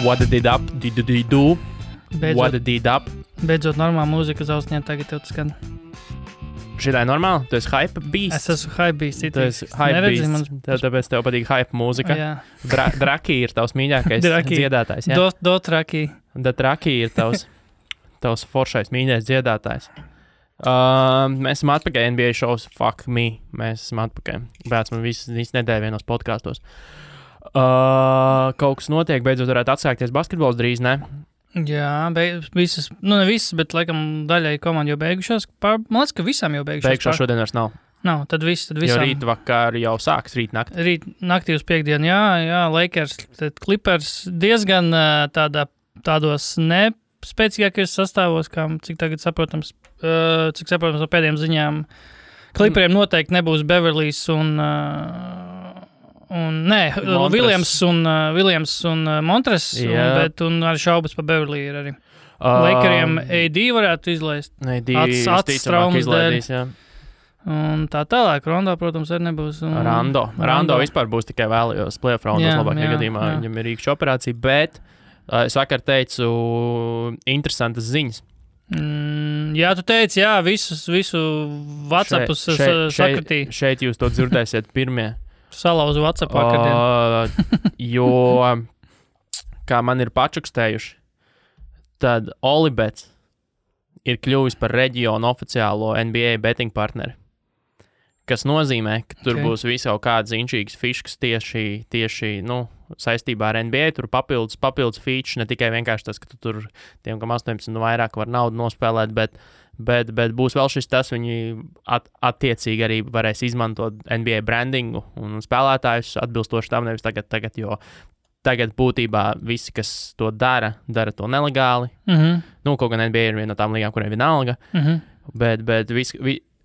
What did it up? Did you do? What did it up? Beidzot normāla mūzika uz ausņiem tagad tev skan. Šitā ir normāli? Tu esi hype beast? Es esmu hype beast. Tu esi hype beast. Tāpēc tev patīk hype mūzika. Jā. Draki ir tavs mīļākais dziedātājs. Jā? Dotraki. Draki ir tavs foršais mīļais dziedātājs. Mēs esam atpakaļ NBA shows. Fuck me. Mēs esam atpakaļ. Bēc man visu nedēļu vienos podkastos. Kaut kas notiek, beidzot varētu atsākties basketbols drīz, ne? Jā, visas, ne visas, bet laikam daļai komandi jau beigušās. Man liekas, ka visām jau beigušās. Beigušās šodien vairs nav. Nav, tad visām. Jo rīt vakar jau sāks, rīt nakti. Rīt naktī uz piekdienu, jā, Lakers, Clippers diezgan tādos spēcīgākajos sastāvos, kā cik tagad saprotams no pēdējām ziņām. Clipperiem noteikti nebūs Beverlijs Williams un Montres, bet arī šaubas par Beverlī ir arī. Lakeriem AD varētu izlaist. AD traumas izlaidīs, jā. Un tā tālāk, Rondo, protams, arī nebūs. Rondo vispār būs tikai vēlējos playoff raundos labākajā gadījumā. Jā. Viņam ir rīkšķa operācija, bet es vakar teicu interesantas ziņas. Jā, tu teici, jā, visu WhatsAppus sakritīja. Šeit jūs to dzirdēsiet pirmie. Salauzu WhatsApp vakardien. Jo, kā man ir pačukstējuši, tad Olibets ir kļuvis par reģionu oficiālo NBA betting partneri. Kas nozīmē, ka tur būs visau kādas inčīgas fiškas tieši saistībā ar NBA. Tur papildus feature, ne tikai vienkārši tas, ka tu tur tiem, kam 18 un vairāk var naudu nospēlēt, bet būs vēl šis tas, viņi attiecīgi arī varēs izmantot NBA brandingu un spēlētājus atbilstoši tam, nevis tagad, jo tagad būtībā visi, kas to dara to nelegāli. Kaut gan NBA ir viena no tām līgām, kuriem vienalga, bet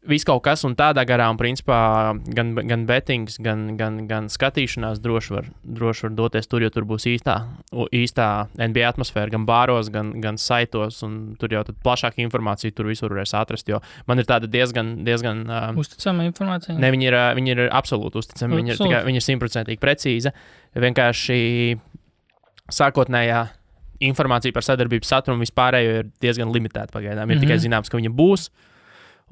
viss kaut kas un tādā garā, un principā gan bettings, gan skatīšanās droši var doties tur, jo tur būs īstā NBA atmosfēra, gan bāros, gan saitos, un tur jau tad plašāka informācija tur visur varēs atrast, jo man ir tāda diezgan uzticama informācija? Ne, viņi ir absolūti uzticami, viņi ir 100% precīza. Vienkārši sākotnējā informācija par sadarbības saturu un vispārējo ir diezgan limitēta pagaidām. Ir tikai zināms, ka viņa būs.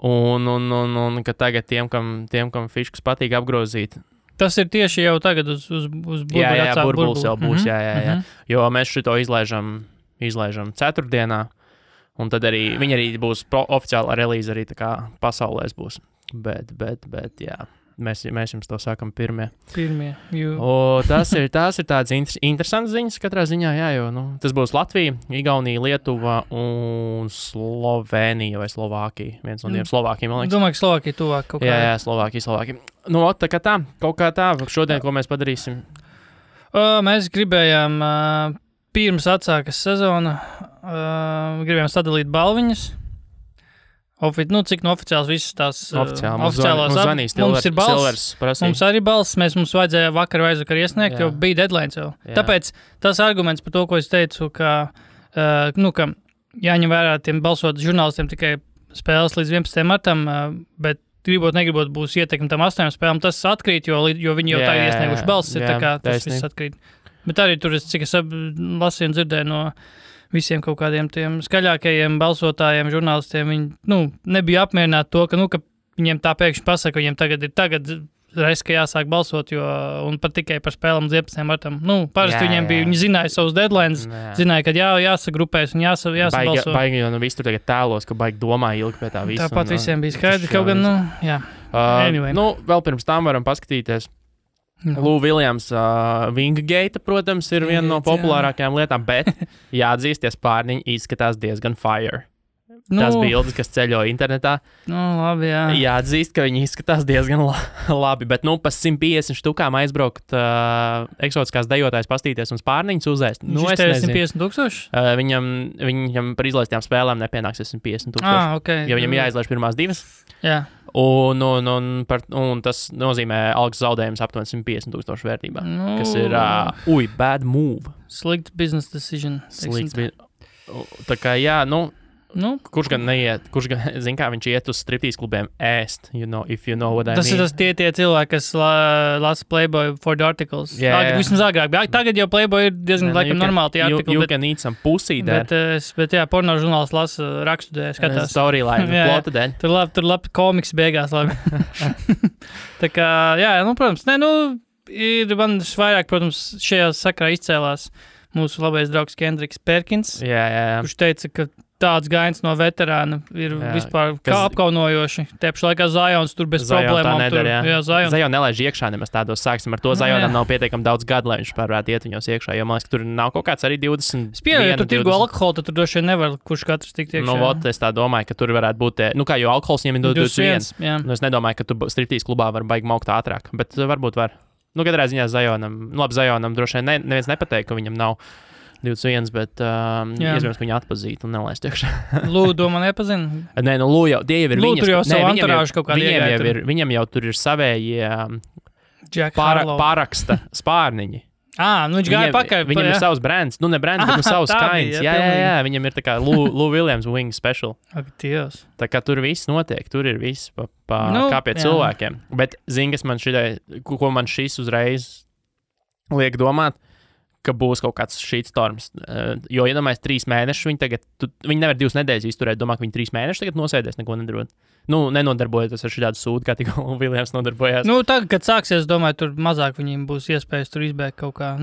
Un ka tagad tiem, kam fiškas patīk apgrozīt. Tas ir tieši jau tagad uz burbuļu. Jā, burbulis jau būs, jā. Jo mēs šito izlaižam ceturtdienā, un tad arī viņi arī būs oficiāla relīze arī tā kā pasaulēs būs. Bet jā, mēs jums to sākam pirmie. Tas ir tāds interesants ziņas katrā ziņā, jā, jo tas būs Latvija, Igaunija, Lietuva un Slovenija vai Slovākija. Viens no tiem Slovākijiem, man liekas. Domāju, ka Slovākija tuvāk kaut kā. Jā, Slovākija. Kaut kā tā, šodien, ko mēs padarīsim? Mēs gribējām, pirms atsākas sezona, gribējām sadalīt balviņas. Cik oficiāls visas tās oficiālās zvanīs, mums ir balss, mums arī balss, mums vajadzēja vakar vai aizvakar iesniegt, jo bija deadline jau. Tāpēc tas arguments par to, ko es teicu, ka jāņem vērā tiem balsot žurnālistiem tikai spēles līdz 11. martam, bet negribot būs ietekmi tam 8 spēlēm, tas atkrīt, jo viņi jau tā ir iesnieguši balss, ir tā kā tas viss atkrīt. Bet arī tur, cik es lasīju un dzirdēju no visiem kaut kādiem tiem skaļākajiem balsotājiem, žurnālistiem, viņi nebija apmierināti to, ka viņiem tā pēkšņi pasaka, viņiem tagad reiz, ka jāsāk balsot, un pat tikai par spēlēm līdz 11. martam. Parasti viņiem bija, viņi zināja savus deadlines, zināja, ka jāsagrupēs un jāsabalso. Baigi, jo viss tur tagad tēlos, ka baigi domā ilgi pie tā visu. Tāpat visiem bija skaidrs, kaut gan, jā. Anyway. Vēl pirms tam varam paskatīties. Lou Williams, Wingate, protams, ir viena no populārākajām lietām, bet jāatzīsties, pārniņi izskatās diezgan fire. Tas bildes, kas ceļo internetā. Labi, jā. Jāatzīst, ka viņi izskatās diezgan labi, bet pa 150 štukām aizbraukt eksotiskās dejotājs pastīties un spārniņus uzēst. Viņš ir 150,000? Viņam par izlaistījām spēlēm nepienāks 150,000. Okay. Jo viņam jāizlaiž pirmās divas. Jā. Un tas nozīmē algas zaudējums aptuveni 150,000 vērtībā, kas ir bad move. Slikt business decision. Tā kā jā, Kurš gan neiet, zin kā viņš iet uz striptīs klubiem ēst, if you know what I mean. Tas ir tie cilvēki, kas lasa Playboy for the articles. Vismaz agrāk. Tagad jau Playboy ir diezgan laikam normāli tie artikli. You can eat some pussy there. Bet jā, porno žurnāls lasa rakstu dēļ, skatās. Storyline, plota dēļ. Tur labi komiks beigās labi. Tā kā, protams, ir man vairāk, protams, šajā sakarā izcēlās mūsu labais draugs Kendriks Perkins, kurš teica, ka tāds gains no veterāna ir vispār kā apkaunojoši. Tēpši laikā Zajons tur bez problēmām. Zajon nelaiž iekšā nemaz tādos. Sāksim ar to. Zajonam nav pietiekami daudz gadu, lai viņš varētu iet viņos iekšā. Jo man liekas, ka tur nav kaut kāds arī 20. Ja tur tirgo alkoholu, tad tur droši vien nevar kurš katrs tikt iekšā. Es tā domāju, ka tur varētu būt, jo alkohols viņiem ir 21. Es nedomāju, ka tu striptīs klubā var baigi maukt ātrāk, bet varbūt var. Katrā ziņā Zajonam, Zajonam droši vien neviens nepateikt, ka viņam nav 21, bet iespējams, ka viņu atpazītu un nelaist iekšā. Lū, domā, nepazina? Nē, Lū jau, tie jau ir viņas. Lū, tur jau savu anturāžu kaut kādā iegāja. Viņam jau tur ir savējie pāraksta spārniņi. Viņš gāja pakaļ. Viņam ir savs brands, ne brands, bet savs kains. Jā, viņam ir tā kā Lou Williams Wing Special. Ak, Dievs. Tā kā tur viss notiek, tur ir viss kā pie cilvēkiem. Bet zini, kas man ko man šis uzreiz liek domāt, ka būs kaut kāds shitstorms. Jo, iedomājies, 3 mēnešus viņi nevar 2 nedēļas izturēt, domā, ka viņi 3 mēnešus tagad nosēdēs, neko nedarot. Nenodarbojoties ar šādu sūdu, kā tikko Viljams nodarbojās. Tagad, kad sāksies, domāju, tur mazāk viņiem būs iespējas tur izbēgt kaut kā.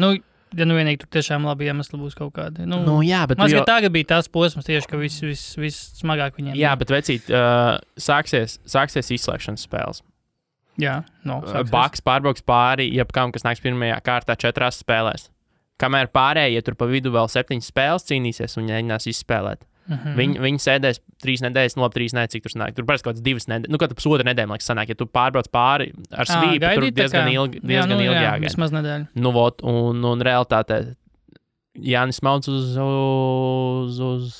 Vienīgi tur tiešām labi iemesli būs kaut kādi. Jā, bet tagad bija tās posms tieši, ka viss smagāk viņiem. Jā, bet vecīt, sāksies izslēgšanas spēles. Jā, Baks pārbrauks pāri, jebkam, kas nāks pirmajā kārtā 4 spēlēs. Kamēr pārējie tur pa vidu vēl 7 spēles cīnīsies un mēģinās izspēlēt. Viņi sēdēs 3 nedēļas, 3 nedēļas, cik tur sanāk. Tur parasti kaut kāds 2 nedēļas, kaut kāds pusotru nedēļu, liekas, sanāk. Ja tu pārbrauc pāri ar svīpu, tur diezgan ilgi jāgaida. Vismaz nedēļu. Un realitātē Jānis Mauds uz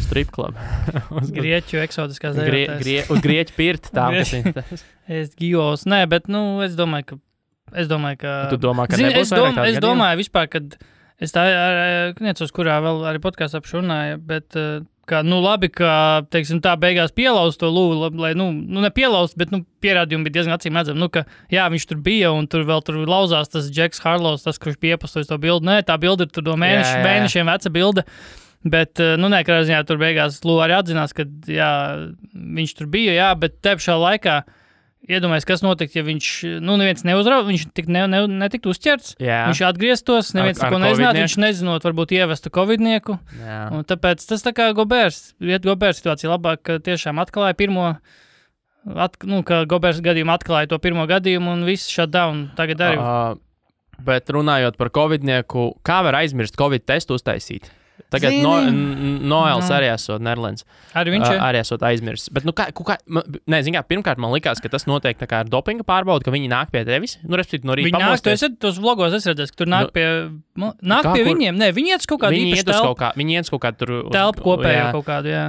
strip club. Grieķu eksotiskās dēļotājs. Uz Grieķu pirti tā, kas ir. Es gijos, bet, es domāju, ka... Tu domā, ka nebūs vairāk tādu Es domāju vispār, kad es tā necos, kurā vēl arī podkāstā runāju, bet labi, ka, teiksim, tā beigās pielaust to Lūvu, lai, nepielaust, bet, pierādījumi bija diezgan acīm redzami, ka, jā, viņš tur bija un tur lauzās tas Džeks Harlows, tas, kurš bija iepostojis to bildi. Nē, tā bilde ir tur no mēnešiem veca bilde. Bet, katrā ziņā tur beigās Lūva arī atzinās, ka, jā, viņš tur bija, jā, bet te pašā laikā iedomājies, kas notiks, ja viņš, neviens neuzrauga, viņš netiktu uzķerts, viņš atgrieztos, neviens neko nezinātu, viņš nezinot, varbūt ievestu covidnieku. Un tāpēc tas tā kā Gobērs situācija labāk, ka tiešām atklāja ka Gobērs gadījumu atklāja to pirmo gadījumu un viss shutdown tagad arī. Bet runājot par covidnieku, kā var aizmirst covid testu uztaisīt? Tagad Noels arī esot Nerlens. Arī viņš arī esot aizmirsts. Bet, pirmkārt man likās, ka tas notiek tā kā ar dopinga pārbaudu, ka viņi nāk pie tevis. Respektīvi, no rīta pamosties. Tos vlogos es redzēju, ka tur nāk pie viņiem. Nē, viņi iet uz kaut kādu īpašu telpu. Viņi iet uz kaut kādu tur... Telpu kopējo kaut kādu, jā.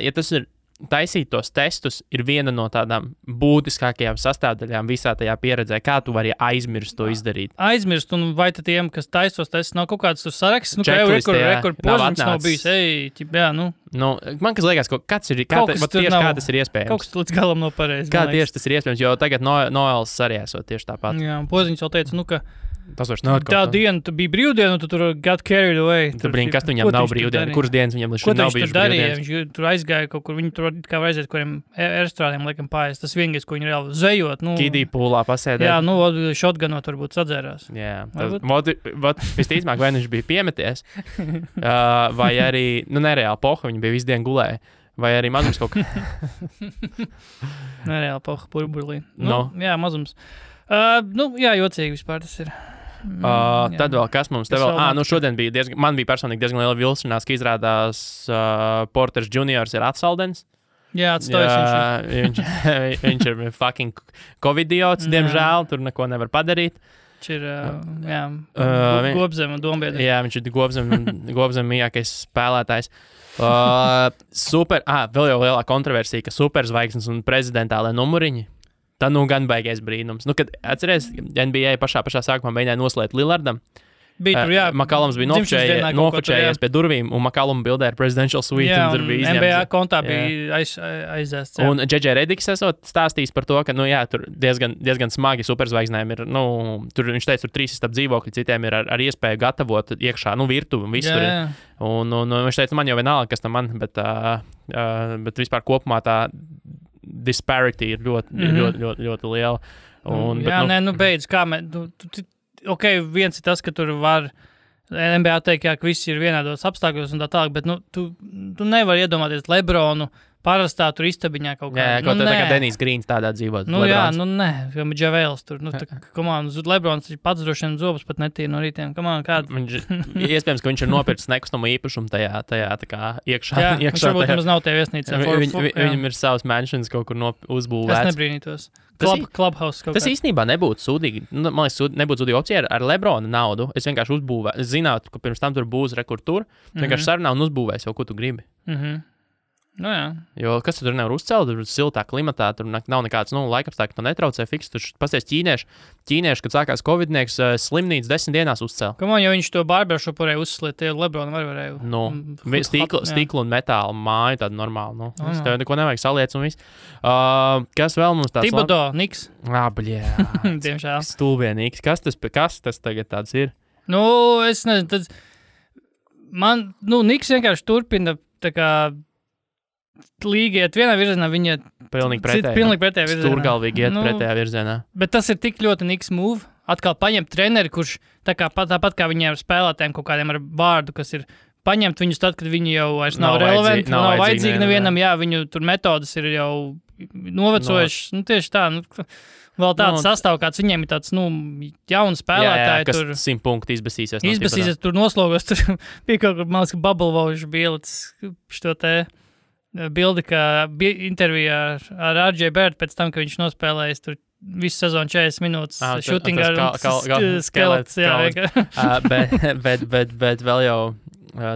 Ja tas ir taisīt tos testus, ir viena no tādām būtiskākajām sastāvdaļām visā tajā pieredzē. Kā tu vari aizmirst to izdarīt? Aizmirst, un vai tad tiem, kas tais tos testus, nav kaut kāds saraksts? Kā jau rekord požiņš nav bijis. Man kas liekas, kāds ir, kā tas ir iespējams? Kaut kas līdz galam nav pareizi. Kā tieši tas ir iespējams, jo tagad Noels arī esot tieši tāpat. Jā, un poziņš jau teica, ka tas vairs nav tā diena, tu bija brīvdiena, un tu tur got carried away. Kas viņam nav brīvdiena? Kuras dienas viņam līdz šim nav bijušas brīvdienas? Viņš tur aizgāja kaut kur, viņi tur kā var aiziet, kuriem airstrādiem laikam pājas. Tas vienīgais, ko viņi reāli zvejot. Kidī pūlā pasēdēt. Jā, shotgunot varbūt sadzērās. Jā, visticamāk, vai viņš bija piemeties, vai arī, nereāli poha, viņi bija visu dienu gulēja. Vai arī mazums kaut kā. Nereāli poha, burburlī. Jā, mazums. Jocīgi vispār tas ir. Tad vēl kas mums te vēl? Šodien bija man bija personīgi diezgan liela vilšanās, ka izrādās Porters Juniors ir atsaldens. Jā, atstojas viņš ir fucking covidiots, diemžēl, tur neko nevar padarīt. Viņš ir, Gobzem un Dombiedri. Jā, viņš ir Gobzem mīļākais spēlētājs. Vēl jau lielā kontroversija, ka superzvaigznes un prezidentālē numuriņi. Tā gan baigais brīnums. Kad atceries, NBA pašā sākumā mēģināja noslēgt Lillardam, Bija tur, jā. McCallums bija nofočējies pie durvīm, un McCallum bildē ar presidential suite. Jā, un tur bija izņemts. NBA kontā bija aizēsts. Un J.J. Rediks esot stāstījis par to, ka, tur diezgan smagi superzvaigznēm ir, tur viņš teica, tur 3 istab dzīvokļi, citiem ir ar iespēju gatavot iekšā, virtuvi un viss tur ir. Un viņš teica, man jau vienalga, kas tam man, bet vispār kopumā tā disparity ir ļoti liela. Beidz, kā ok, viens ir tas, ka tur var NBA teikt, ka visi ir vienādos apstākļos un tā tālāk, bet tu nevari iedomāties Lebronu parastā tur istabiņā kaut kā. Jā, tā kā Denijs Grīns tādā dzīvot. Nē, kā Džavēls tur. Lebrons pats droši vien zobus pat netīra no rītiem. Iespējams, ka viņš ir nopircis nekustamo īpašumu tajā tā kā iekšā. Jā, viņš varbūt nemaz nav tajā viesnīcā. Viņam ir savs mansions kaut kur uzbūvēts. Es nebrīnītos. Clubhouse kaut kā. Tas īstenībā nebūtu sūdīgi. Man liekas, nebūtu sūdīga opcija ar Lebrona naudu. Es vienkārši uzbūvēju. Es zinātu, ka pirms tam tur būs rekurtur. Vienkārši sarunā un uzbūvēs jau, ko tu gribi. Jā. Jo kas tur nevar uzcelt, tur siltā klimatā, tur nav nekāds laikapstākļi, to netraucē fiks. Tur pasties ķīnieši, kad sākās covidnieks, slimnīcu 10 dienās uzcēla. Ja viņš to barbershopu varēja uzsliet, tie Lebronu varēja. Stiklu un metāla māja tāda normāla. Es tev neko nevajag saliec un viss. Kas vēl mums tāds? Thibodeau, Niks. Diemžēl. Stulbie Niks. Kas tas tagad tāds ir? Es nezinu, Niks vienkārši turpina tā kā līga iet vienā virzienā, viņa pilnīgi pretējā virzienā. Stūrgalvīgi iet pretējā virzienā. Bet tas ir tik ļoti Niks move. Atkal paņemt treneri, kurš tāpat kā viņiem ar spēlētājiem kaut kādiem ar vārdu, kas ir paņemt viņus tad, kad viņi jau vairs nav relevanti, nav vajadzīgi nevienam, viņu tur metodas ir jau novecojušas. Tieši tā, vēl tāds sastāv, kāds viņiem ir tāds, jauni spēlētāji. Kas 100 punktu izbasīsies. Izbasīsies, tur noslogos, tur bija kaut kur, man liekas, Bubble Wauž bija šo te bildi, kā intervijā ar RJ Barrett pēc tam, ka viņš nospēlējis tur visu sezonu 40 minūtes shooting ar skelets. Bet vēl jau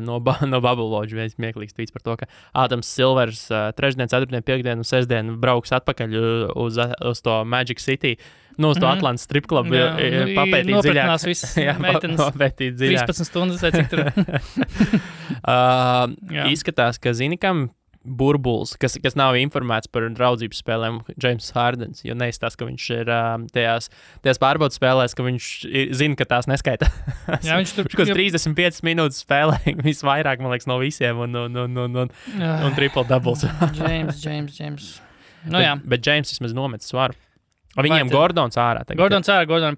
no Bubble Wauž viens smieklīgs tweets par to, ka Ādams Silvers trešdien, ceturtdien, piekdien un sesdien brauks atpakaļ uz to Magic City. Uz to Atlantas strip clubu papētīt dziļāk. Nopratnās visas meitenes. Papētīt dziļāk. 13 stundas vai cik tur. Izskatās, ka zini, kam burbulis, kas nav informēts par draudzības spēlēm, James Hardens, jo neizstās, ka viņš ir tajās pārbaudas spēlēs, ka viņš zina, ka tās neskaita. Jā, viņš tur 35 minūtes spēlē, visvairāk, man liekas, no visiem, un triple doubles. James. Bet James vismaz nomet svaru. Viņiem Gordons ārā. Gordons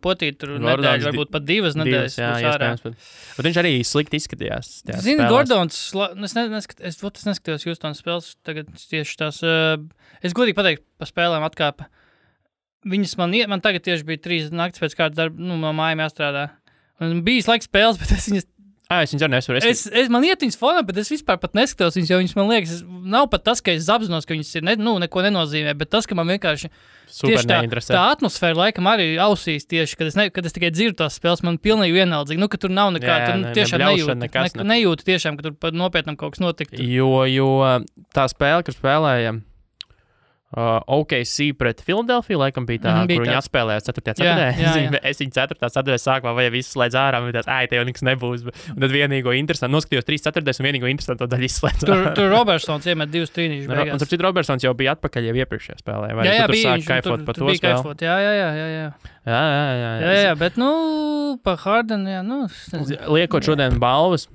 potīt tur nedēļu, varbūt pat 2 nedēļas. Jā, iespējams. Bet viņš arī slikti izskatījās. Zini, Gordons, es neskatījos Houstonas spēles, tagad tieši tās, es godīgi pateiktu, pa spēlēm atkāpa. Viņas man tagad tieši bija 3 naktis pēc kāda darba, no mājām jāstrādā. Un bijis laiks spēles, bet es viņas... Es viņas arī nesaru. Man iet viņas fonā, bet es vispār pat neskatos viņas, jo viņas man liekas, nav pat tas, ka es apzinos, ka viņas ir neko nenozīmē, bet tas, ka man vienkārši tieši tā atmosfēra laikam arī ausīs tieši, kad es tikai dzirdu tās spēles, man pilnīgi vienaldzīgi, ka tur nav nekā, tur tiešām nejūtu tiešām, ka tur nopietnam kaut kas notiktu. Jo tā spēle, kur spēlējam, OKC pret Filadelfiju, laikam bija tā, kur viņi atspēlējās 4. ceturtdē. Es viņu 4. ceturtdē sākumā vai visu slēdz ārā, un te jau nekas nebūs. Un tad vienīgo interesantu, noskatījos 3 ceturtdēs un vienīgo interesantu daļu izslēdz. Tur Robertsons iemet 2 trīnīšus beigās. Un starp citu Robertsons jau bija atpakaļ jau iepriekšējā spēlē. Vai tu tur sāki kaifot par to spēli? Jā, bet pa Hardenu, Liekot šodien balvas,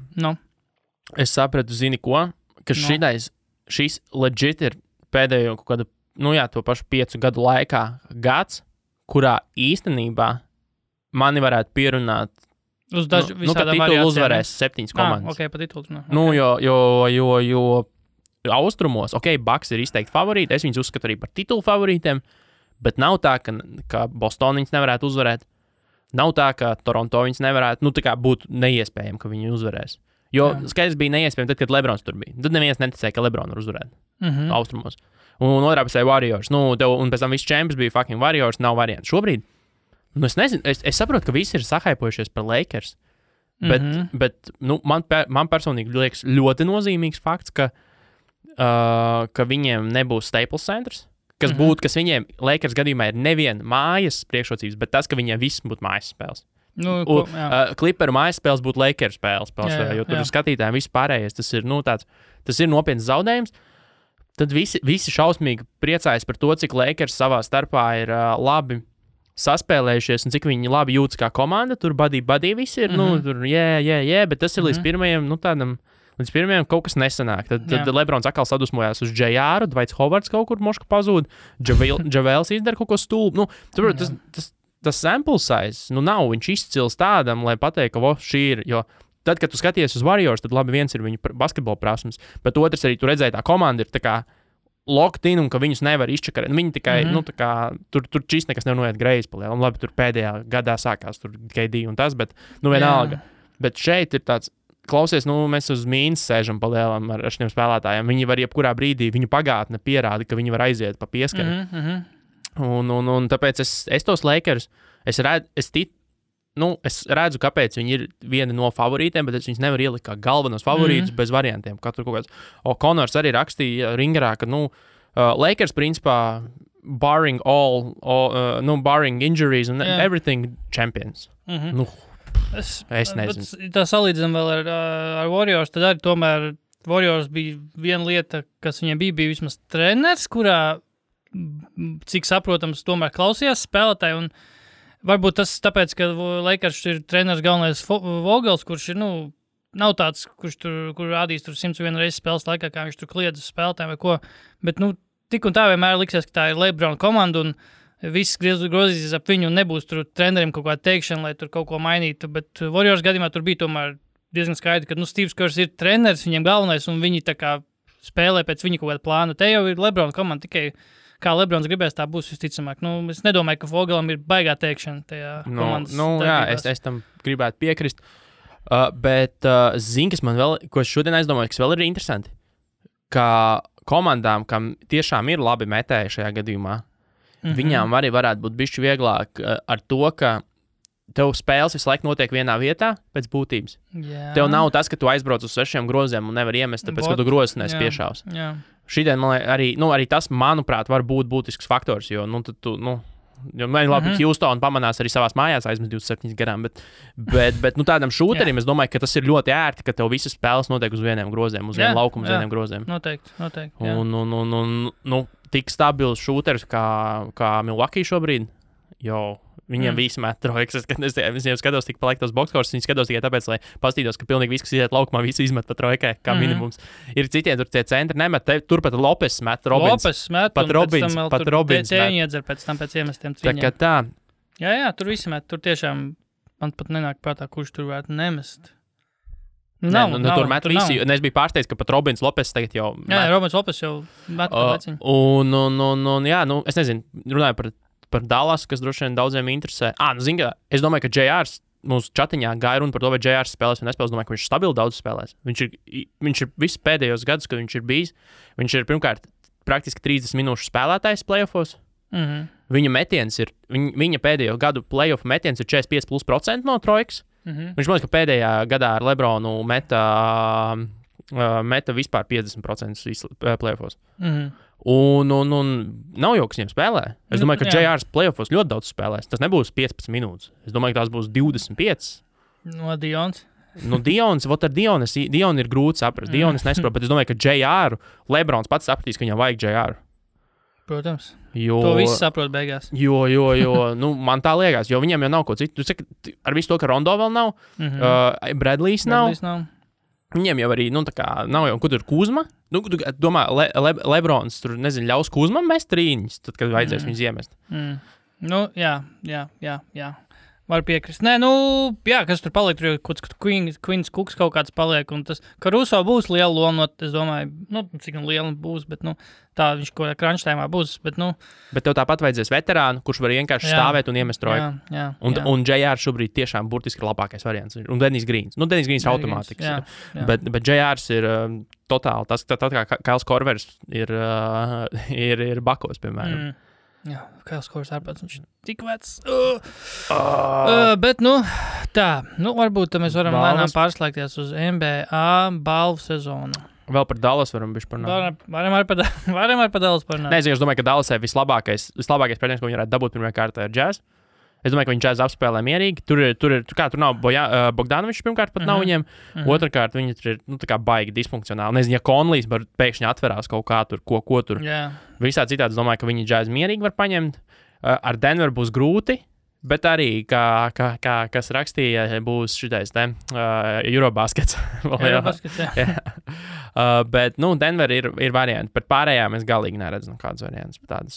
es sapratu, zini ko, ka šis legit ir pēdējo kaut kādu to pašu 5 gadu laikā gads, kurā īstenībā mani varētu pierunāt, ka titulu uzvarēs 7 komandas. Pa titulu. Jo austrumos, Bucks ir izteikti favorīti, es viņus uzskatu arī par titulu favorītiem, bet nav tā, ka Boston viņus nevarētu uzvarēt. Nav tā, ka Toronto viņus nevarētu, tā kā būtu neiespējami, ka viņi uzvarēs. Jo skaidrs bija neiespējami tad, kad Lebrons tur bija. Tad neviens neticēja, ka Lebron var uzvarēt austrumos. Un otrā pusē Warriors. Un pēc tam viss čempions bija fucking Warriors, nav variantu. Šobrīd, es nezinu, es saprotu, ka visi ir sahaipojušies par Lakers, bet man personīgi liekas ļoti nozīmīgs fakts, ka viņiem nebūs Staples centrs, kas būtu, kas viņiem Lakers gadījumā ir nevien mājas priekšrocības, bet tas, ka viņiem viss būtu mājas spēles. Clipperu mājas spēles būtu Lakers spēles, jo tur ir skatītājiem viss pārējais. Tas ir nopietns zaudējums. Tad visi šausmīgi priecājas par to, cik Lakers savā starpā ir labi saspēlējušies un cik viņi labi jūtas kā komanda. Tur buddy visi ir, tur bet tas ir līdz pirmajam, līdz pirmajam kaut kas nesanāk. Tad Lebrons atkal sadusmojās uz JR, Dwights Howards kaut kur moška pazūd, Javels izdara kaut ko stulbu. Tas sample size, nav viņš izcils tādam, lai pateiktu, ka šī ir, jo tad, kad tu skaties uz Warriors, tad labi viens ir viņu basketbola prasmes, bet otrs arī tu redzēji tā komanda ir tā kā locked in un ka viņus nevar izčakarēt. Viņi tikai, tur čist nekas nevar noiet greizi palielu. Labi, tur pēdējā gadā sākās tur KD un tas, bet vienalga. Bet šeit ir tāds, klausies, mēs uz mīnas sēžam palielam ar šiem spēlētājiem. Viņi var jebkurā brīdī, viņu pagātne pierāda, ka viņi var aiziet pa pieskaru. Un tāpēc es tos Lakers, es redzu, kāpēc viņi ir viena no favorītiem, bet es viņus nevaru ielikt kā galvenos favorītus bez variantiem. Katru kaut kāds. Conors arī rakstīja Ringerā, ka, Lakers principā barring barring injuries and everything champions. Es nezinu. Tā salīdzinām vēl ar Warriors, tad arī tomēr Warriors bija viena lieta, kas viņiem bija vismaz treneris, kurā, cik saprotams, tomēr klausījās spēlētāji, un varbūt tas tāpēc, ka Lakers ir treneris galvenais Vogels, kurš ir, nav tāds, kur rādīs tur 101 reizes spēles laikā, kā viņš tur kliedz uz spēlētājiem vai ko, bet, tik un tā vienmēr liksies, ka tā ir LeBron komanda, un viss grozīsies ap viņu un nebūs tur trenerim kaut kāda teikšana, lai tur kaut ko mainītu, bet Warriors gadījumā tur bija tomēr diezgan skaidri, ka, Steves Kers ir treneris, viņiem galvenais, un viņi tā kā spēlē pēc viņa kaut kāda plāna. Te jau ir LeBron komanda, tikai kā LeBrons gribēs, tā būs visticamāk. Es nedomāju, ka Vogelam ir baigā teikšana tajā komandas darbībās. Es tam gribētu piekrist, bet zini, kas man vēl, ko es šodien aizdomāju, kas vēl ir interesanti, ka komandām, kam tiešām ir labi metēji šajā gadījumā, viņām arī varētu būt bišķi vieglāk ar to, ka tev spēles visu laiku notiek vienā vietā pēc būtības. Jā. Tev nav tas, ka tu aizbrauc uz 6 groziem un nevar iemest, tāpēc, ka tu grozes neesi piešāvs. Šitien man arī tas, manuprāt, var būt būtisks faktors, jo, jo man labi, Houston pamanās arī savās mājās aizmest 27 garām, bet tādam šūterim es domāju, ka tas ir ļoti ērti, ka tev visas spēles notiek uz vieniem groziem, uz vienu laukumu, uz vieniem groziem. Noteikti. Un tik stabils šūteris kā Milwaukee šobrīd, jo viņiem visi met trojkas. Es viņiem skatos tik paliek tos boxkors, viņi skatos tikai tāpēc, lai pastītos, ka pilnīgi viss, kas iet laukumā, visi izmet pa trojkai, kā minimums. Ir citiem tur tie centri nemet, turpat Lopes met, Robins, pat Robins met. Iedzer pēc tam pēc iemestiem cīņiem. Tā kā tā. Jā, tur visi met, tur tiešām man pat nenāk prātā, kurš tur varētu nemest. Nav, tur met visi, un es biju pārsteigts, ka pat Robins Lopes tagad jau met. Jā, Robins Lopes jau met pēc viņa. Un es nezinu, runāju par Dallas, kas droši vien daudziem interesē. Es domāju, ka JR mūsu čatiņā gāja runa par to, vai JR spēlēs vai nespēlēs. Domāju, ka viņš stabili daudz spēlēs. Viņš ir visus pēdējos gadus, kad viņš ir bijis. Viņš ir pirmkārt praktiski 30 minūšu spēlētājs playoffos. Viņa metiens ir, viņa pēdējo gadu playoff metiens ir 45% no trojkas. Viņš man liekas, ka pēdējā gadā ar Lebronu meta vispār 50% playoffos. Un nav jau, kas viņiem spēlē. Es domāju, ka JR's playoffos ļoti daudz spēlēs. Tas nebūs 15 minūtes. Es domāju, ka tās būs 25. Dions. Dions, ar Dionu ir grūti saprast. Dionis nesaprot, bet es domāju, ka JR, Lebrons pats sapratīs, ka viņam vajag JR. Protams. To viss saprot beigās. Jo, man tā liekas, jo viņiem jau nav ko citu. Tu saki, ar visu to, ka Rondo vēl nav, Bradleys nav. Viņiem jau arī, nav jau, kur tur Kuzma. Domā, Lebrons tur, nezinu, ļaus Kuzmam mest trīņas, tad, kad vajadzēs viņus iemest. Jā. Var piekrist. Nē, kas tur paliek, tur jau Queens Cooks kaut kāds paliek, un tas, ka Russo būs liela loma, es domāju, cik liela būs, bet, tā viņš ko crunch timā būs, bet, Bet tev tāpat vajadzēs veterānu, kurš var vienkārši stāvēt un iemest trojku. Un JR šobrīd tiešām burtiski ir labākais variants. Un Dennis Greens. Dennis Greens ir automātikas. Bet JR's ir totāli, tas tā kā Kails Korvers ir Bakos, piemēram. Jā, Kails Korvers ārpēc, viņš ir tik vecs. Bet, tā, varbūt mēs varam lēnām pārslēgties uz NBA balvu sezonu. Vēl par Dallas varam bišķi parunāt. Varam arī par Dallas parunāt. Nezinu, es domāju, ka Dallasē vislabākais pretinieks, ko viņi varētu dabūt pirmajā kārtā, ir Jazz. Es domāju, ka viņi Jazz apspēlē mierīgi. Tur nav Bogdanovičs, pirmkārt, pat nav viņiem. Otrakārt, viņi tur ir tā kā baigi disfunkcionāli. Nezinu, ja Konlijs pēkšņi atverās kaut kā tur, ko tur. Visā citādi es domāju, ka viņi Jazz mierīgi var paņemt. Ar Denveru būs grūti, bet arī, kas rakstīja, būs šitais te Eurobaskets. Eurobaskets, jā. Bet, Denver ir varianti. Par pārējām es galīgi neredzu kādas variantas. Tādas,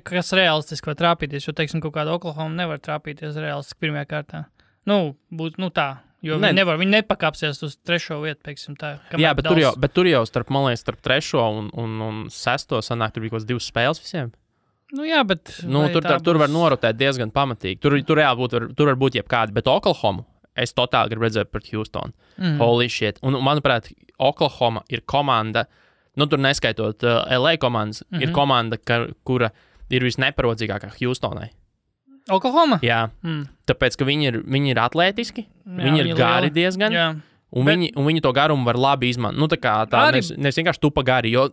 kas realistiski var trāpīties, jo, teiksim, kaut kāda Oklahoma nevar trāpīties realistiski pirmajā kārtā. Tā. Jo viņi nepakāpsies uz 3. vietu, teiksim tā. Jā, bet tur jau starp 3. un 6. sanāk, tur bija kaut kāds 2 spēles visiem. Jā, bet... Tur var norotēt diezgan pamatīgi. Tur reāli var būt jebkādi, bet Oklahoma es totāli gribu redzēt pret Houstonu. Holy shit. Un, manuprāt, Oklahoma ir komanda, tur neskaitot LA komandas, ir komanda, kura ir visneparodzīgākā Houstonai. Oklahoma? Jā. Tāpēc, ka viņi ir atlētiski, viņi ir gari diezgan. Jā. Un viņi to garumu var labi izmantot. Nevis vienkārši tupa gari, jo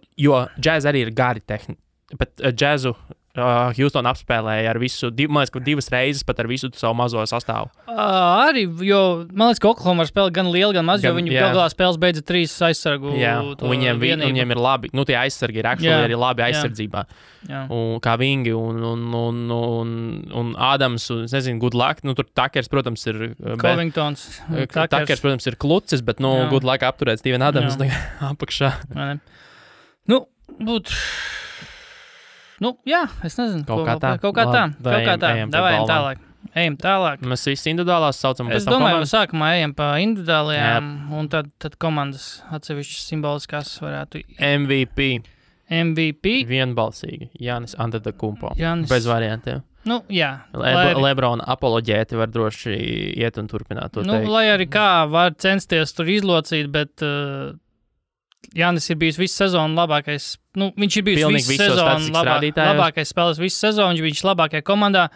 Jazz arī ir gari tehniski. Bet Jazzu Houston apspēlēja ar visu, man liekas, ka 2 reizes pat ar visu savu mazo sastāvu. Arī, jo man liekas, ka Oklahoma var spēlēt gan lielu, gan maz, jo viņi galā spēles beidza 3 aizsargu. Jā, un viņiem ir labi, tie aizsargi ir arī labi aizsardzībā. Jā. Un kā Vingi un Ādams, un, es nezinu, good luck, tur Takers, protams, ir... Covingtons. Takers, protams, ir klucis, bet, good luck apturēt Steven Adams apakšā. Jā, es nezinu. Kaut kā tā. Ejam tālāk. Mēs visi individuālās saucam. Es domāju, ka sākumā ejam pa individuālajām, un tad komandas atsevišķas simboliskās varētu... MVP? Vienbalsīgi. Jānis Antetokounmpo. Bez variantiem. Jā. Lebrona apoloģēti var droši iet un turpināt to teikt. Lai arī kā var censties tur izlocīt, bet... Jānis ir bijis visu sezonu labākais. Viņš ir bijis visu sezonu labākais spēlētājs visu sezonu. Viņš bija labākajā komandā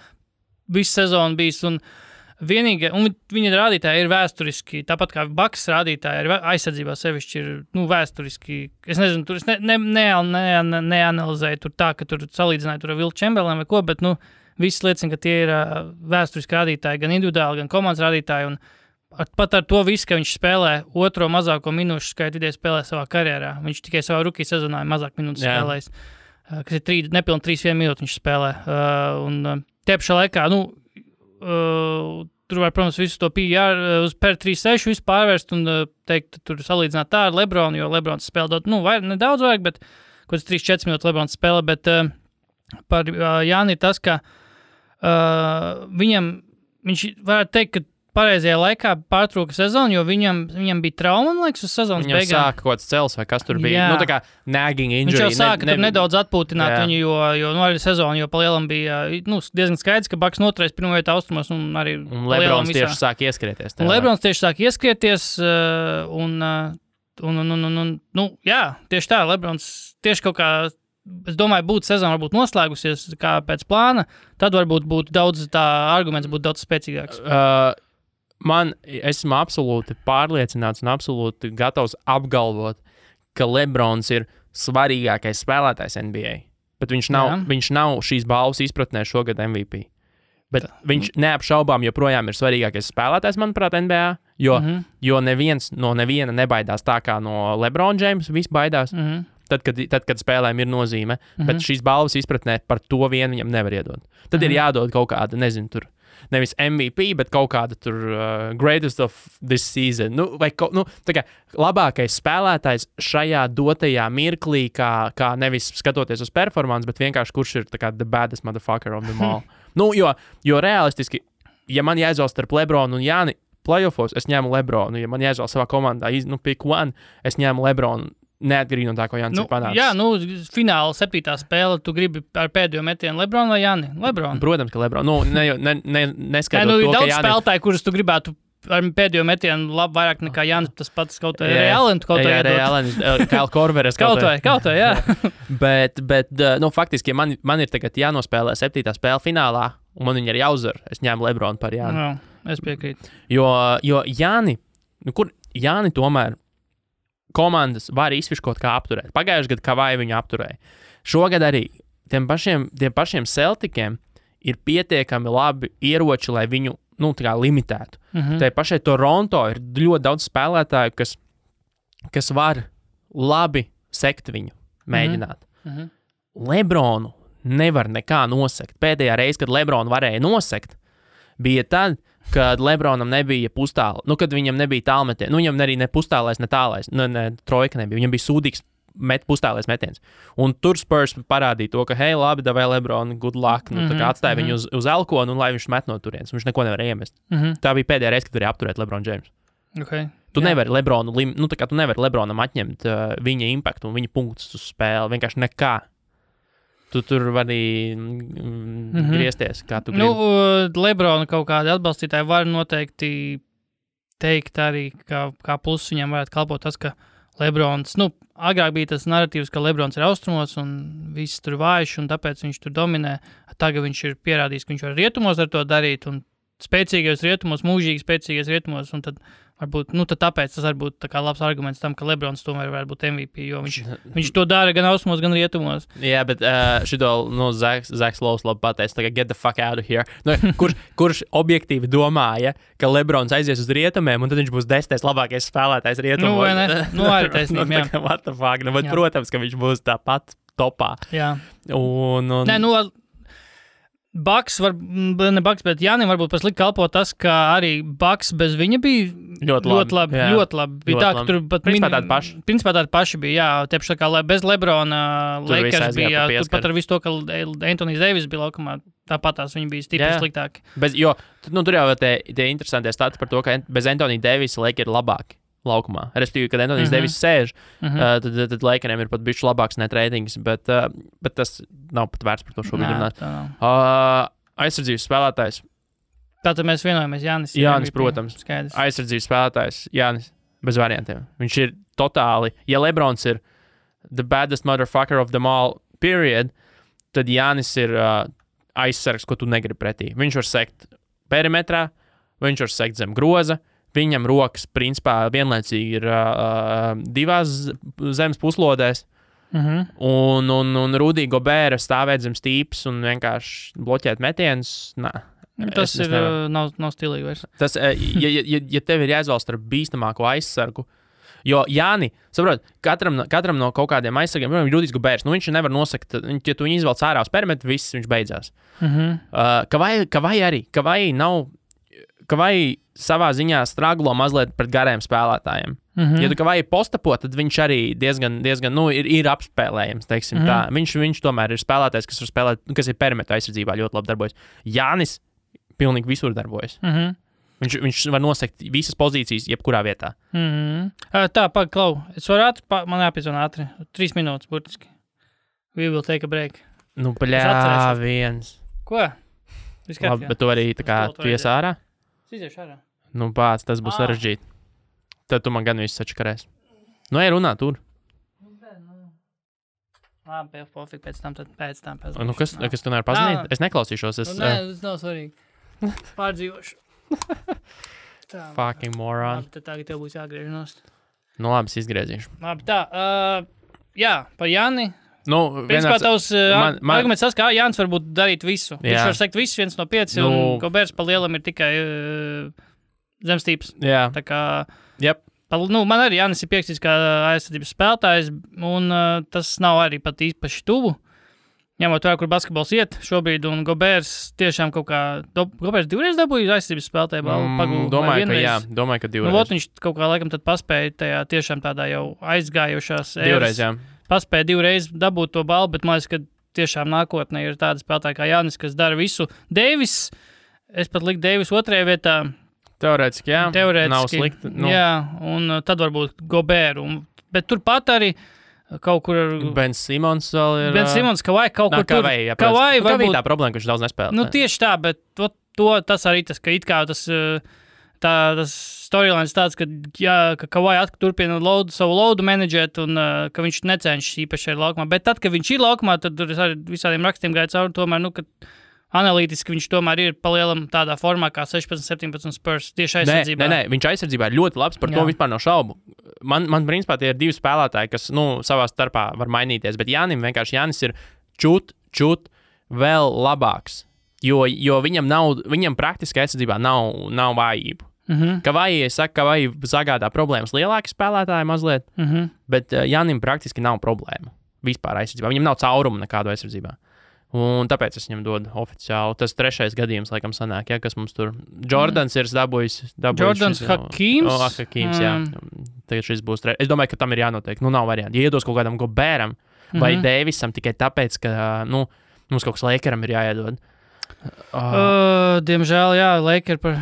visu sezonu bijis. Un viņa rādītāji ir vēsturiski, tāpat kā Bucks rādītāji ir aizsardzībā sevišķi ir vēsturiski. Es nezinu, tur es neanalizēju tur tā, ka tur salīdzināju tur ar Wilt Chamberlainu vai ko, bet viss liecina, ka tie ir vēsturiski rādītāji, gan individuāli, gan komandas rādītāji. Un pat ar to visu, ka viņš spēlē 2. mazāko minūšu skaitu vidēji spēlē savā karjerā. Viņš tikai savā rookie sezonā mazāk minūtes spēlējis. Kas ir nepilni 3-1 minūti viņš spēlē. Tie pašā laikā, tur var, protams, visu to PR uz per 3-6 visu pārvērst un teikt, tur salīdzināt tā ar Lebronu, jo Lebrons spēlē nedaudz vairāk, bet kaut kāds 3-4 minūtes Lebrons spēlē, bet par Jāni ir tas, ka viņš varētu teikt, ka pareizajā laikā pārtrauka sezonu, jo viņam bija trauma, man liekas, uz sezonas beigām. Viņam sāka kaut kāds cels vai kas tur bija. Tā kā nagging injury. Viņš jau sāka tur nedaudz atpūtināt viņu, jo arī sezonu, jo palielam bija diezgan skaidrs, ka Bucks noturēs pirmo vietu austrumos un arī Lebrons tieši sāk ieskrieties. Lebrons tieši sāk ieskrieties jā, tieši tā, Lebrons tieši kaut kā, es domāju, būtu sezona varbūt noslēgusies kā pēc plāna, tad varbūt būtu daudz tā arguments būtu daudz spēcīgāks. Esmu absolūti pārliecināts un absolūti gatavs apgalvot, ka Lebrons ir svarīgākais spēlētājs NBA. Bet viņš nav šīs balvas izpratnē šogad MVP. Bet viņš neapšaubām joprojām ir svarīgākais spēlētājs, manuprāt, NBA, jo neviens no neviena nebaidās tā kā no LeBron James, viss baidās. Tad, kad spēlēm ir nozīme, bet šīs balvas izpratnē par to vienu viņam nevar iedot. Tad ir jādod kaut kāda, nezinu, tur nevis MVP, bet kaut kāda tur greatest of this season. Tā kā labākais spēlētājs šajā dotajā mirklī, kā nevis skatoties uz performance, bet vienkārši kurš ir tā kā the baddest motherfucker of them all. Jo realistiski, ja man jāizvēlas starp Lebronu un Jāni playoffos, es ņēmu Lebronu. Ja man jāizvēlas savā komandā, pick one, es ņēmu Lebronu. Neatkarīgi no tā, ko Jānis ir panācis. Jā, fināla 7. spēle, tu gribi ar pēdējo metienu Lebronu vai Jāni? Lebronu. Protams, ka Lebronu. Neskatot to, ka daudz Jāni... spēlētāji, kurus tu gribētu ar pēdējo metienu vairāk nekā Jānis, tas pats kaut kā Allen, kaut kā iedot. Kyle Korveres kaut kā, jā. bet faktiski, ja man ir tagad jānospēlē 7. spēle finālā, un man viņa ir jāuzvar, es ņēmu Lebronu par Jāni. Es piekrītu. Jo Jāni, Jāni tomēr komandas var izfiškot kā apturēt. Pagājušajā gadā Kavai viņu apturēja. Šogad arī tiem pašiem Celticiem ir pietiekami labi ieroči, lai viņu limitētu. Tai pašai Toronto ir ļoti daudz spēlētāju, kas var labi sekt viņu, mēģināt. Lebronu nevar nekā nosekt. Pēdējā reize, kad Lebronu varēja nosekt, bija tad, kad Lebronam nebija pustāla, kad viņam nebija tālmetiens. Viņam arī ne pustālais, ne tālais, ne trojka nebija. Viņam bija sūdīgs pustālais metiens. Un tur Spurs parādīja to, ka, hei, labi, davai Lebronu, good luck, atstāja viņu uz elkonu, un lai viņš met no turienes. Viņš neko nevarēja iemest. Tā bija pēdējā reize, kad varēja apturēt Lebronu James. Okay. Tu nevari Lebronu, tu nevari Lebronam atņemt viņa impaktu un viņa punktus uz spēli. Vienkārši nekā. Tu tur vari griezties, kā tu gribi. Lebrona kaut kādi atbalstītāji var noteikti teikt arī, kā pluss viņam varētu kalpot tas, ka Lebrons, agrāk bija tas narratīvs, ka Lebrons ir austrumos un viss tur vājš, un tāpēc viņš tur dominē. Tagad viņš ir pierādījis, ka viņš var rietumos ar to darīt, un spēcīgajos rietumos, mūžīgi spēcīgajos rietumos, un tad varbūt, tad tāpēc tas var būt tā kā labs arguments tam, ka Lebrons tomēr var būt MVP, jo viņš to dara gan austrumos, gan rietumos. Jā, bet šito, Zaks Lows labi pateica, tā kā get the fuck out of here. Kurš objektīvi domāja, ka Lebrons aizies uz rietumiem, un tad viņš būs 10. labākais spēlētājs rietumos? Vai ne? Arī taisnība, jā. What the fuck? Bet, protams, ka viņš būs tāpat topā. Jā. Nē, Bucks ne Bucks, bet Jānim varbūt paslikt kalpo tas, ka arī Bucks bez viņa bija ļoti labi. Bija tā, ka tur pat principā tādi paši bija, jā, tieši tā kā bez Lebrona Lakers bija, tur pat ar visu to, ka Anthony's Davis bija laukumā, tāpatās viņi bija stipri sliktāki. Jo, tur jau tie interesantie stati par to, ka bez Anthony Davis Lakers ir labāki laukumā. Respektīvi, kad Anthony's Davis sēž, tad Lakeriem ir pat bišķi labāks net ratings, bet tas nav pat vērts par to šobrīd runāt. Aizsardzības spēlētājs. Tātad mēs vienojamies, Jānis, protams. Skaidrs. Aizsardzības spēlētājs, Jānis, bez variantiem. Viņš ir totāli, ja Lebrons ir the baddest motherfucker of them all, period, tad Jānis ir aizsargs, ko tu negribi pretī. Viņš var sekt perimetrā, viņš var sekt zem groza, viņam rokas, principā, vienlaicīgi ir divās zemes puslodēs, un Rudy Gobert stāvēt zem stīpes un vienkārši bloķēt metienus. Tas nav stilīgi vairs. Tas, ja tev ir jāizvēlas starp bīstamāko aizsargu, jo Jāni, saprot, katram no kaut kādiem aizsargiem, Rudijs Goberts, viņš nevar nosakt, ja tu viņu izvēlc ārā uz perimetru, viss viņš beidzās. Kavai savā ziņā straglo mazliet pret gariem spēlētājiem. Ja tu Kavai postapo, tad viņš arī diezgan ir apspēlējams, teiksim tā. Viņš tomēr ir spēlētājs, kas var spēlēt, kas ir perimetra aizsardzībā ļoti labi darbojas. Jānis pilnīgi visur darbojas. Viņš var nosekt visas pozīcijas, jebkurā vietā. Tā, Klau, es varu man jāpiezvana ātri. 3 minūtes, burtiski. We will take a break. Viens. Ko? Labi, bet tu arī tā kā ties ārā? Iziešu ārā. Pāc, tas būs sarežģīti. Tad tu man gan visu sačakarēs. Ej runā tur. Labi, pofīgi, pēc tam kas tu nevar pazinīt? Es neklausīšos. Nē, tas nav svarīgi. Pārdzīvošu. Fucking moron. Labi, tad tagad tev būs jāgriež. Labi, es izgriezīšu. Labi, tā. Jā, par Jāni. Principā tavs arguments tas, ka Jānis varbūt darīt visu. Viņš var sekt visu 1 no 5, un Goberts pa lielam ir tikai zemstīps. Jā. Tā kā, man arī Jānis ir pierakstīts kā aizsardzības spēlētājs, un tas nav arī pat īpaši tuvu. Ņemot vērā, kur basketbols iet šobrīd, un Goberts tiešām kaut kā, Goberts 2 reizes dabūja aizsardzības spēlētāju balvu. Domāju, ka 2 reizes. Viņš kaut kā laikam tad paspēja tajā tiešām tādā jau aizgājušās 2 reizes, jā. Paspēja 2 reizes dabūt to balvu, bet man liekas, ka tiešām nākotnē ir tāda spēlētāja kā Jānis, kas dara visu. Deivis, es pat liku Deivis 2. vietā. Teorētiski, jā. Nav slikti. Jā, un tad varbūt Gobert. Bet turpat arī kaut kur... Ben Simons vēl ir... Ben Simons, Kavai kaut kur tur... Kavai varbūt... tā problēma, ka viņš daudz nespēlē. Tieši tā, bet tas arī tas, ka it kā tas storylines tāds, ka Kavai turpina savu loadu menedžēt un ka viņš necenšas īpaši ar laukumā. Bet tad, kad viņš ir laukumā, tad tur ar visādiem rakstiem gāja cauri tomēr, ka analītiski viņš tomēr ir palielam tādā formā kā 16-17 Spurs tieši aizsardzībā. Nē, viņš aizsardzībā ir ļoti labs, par to vispār nav šaubu. Man principā tie ir 2 spēlētāji, kas, savā starpā var mainīties, bet Jānis ir čut vēl labāks. Jo viņam praktiski aizsardzībā nav vājību. Kavai sagādā problēmas lielāki spēlētāji mazliet, bet Janim praktiski nav problēma vispār aizsardzībā. Viņam nav caurumu nekādu aizsardzībā. Un tāpēc es viņam dodu oficiāli. Tas 3. gadījums, laikam, sanāk, kas mums tur. Jordans ir dabūjis. Jordans Hakīms. Hakīms, jā. Tagad šis būs. Es domāju, ka tam ir jānotiek. Nav varianti. Ja iedos kaut kādam Gobēram vai Deivisam tikai tāpēc, ka, mums kaut kas Lakeram ir jāiedod. Diemžēl, jā, Lakeri par,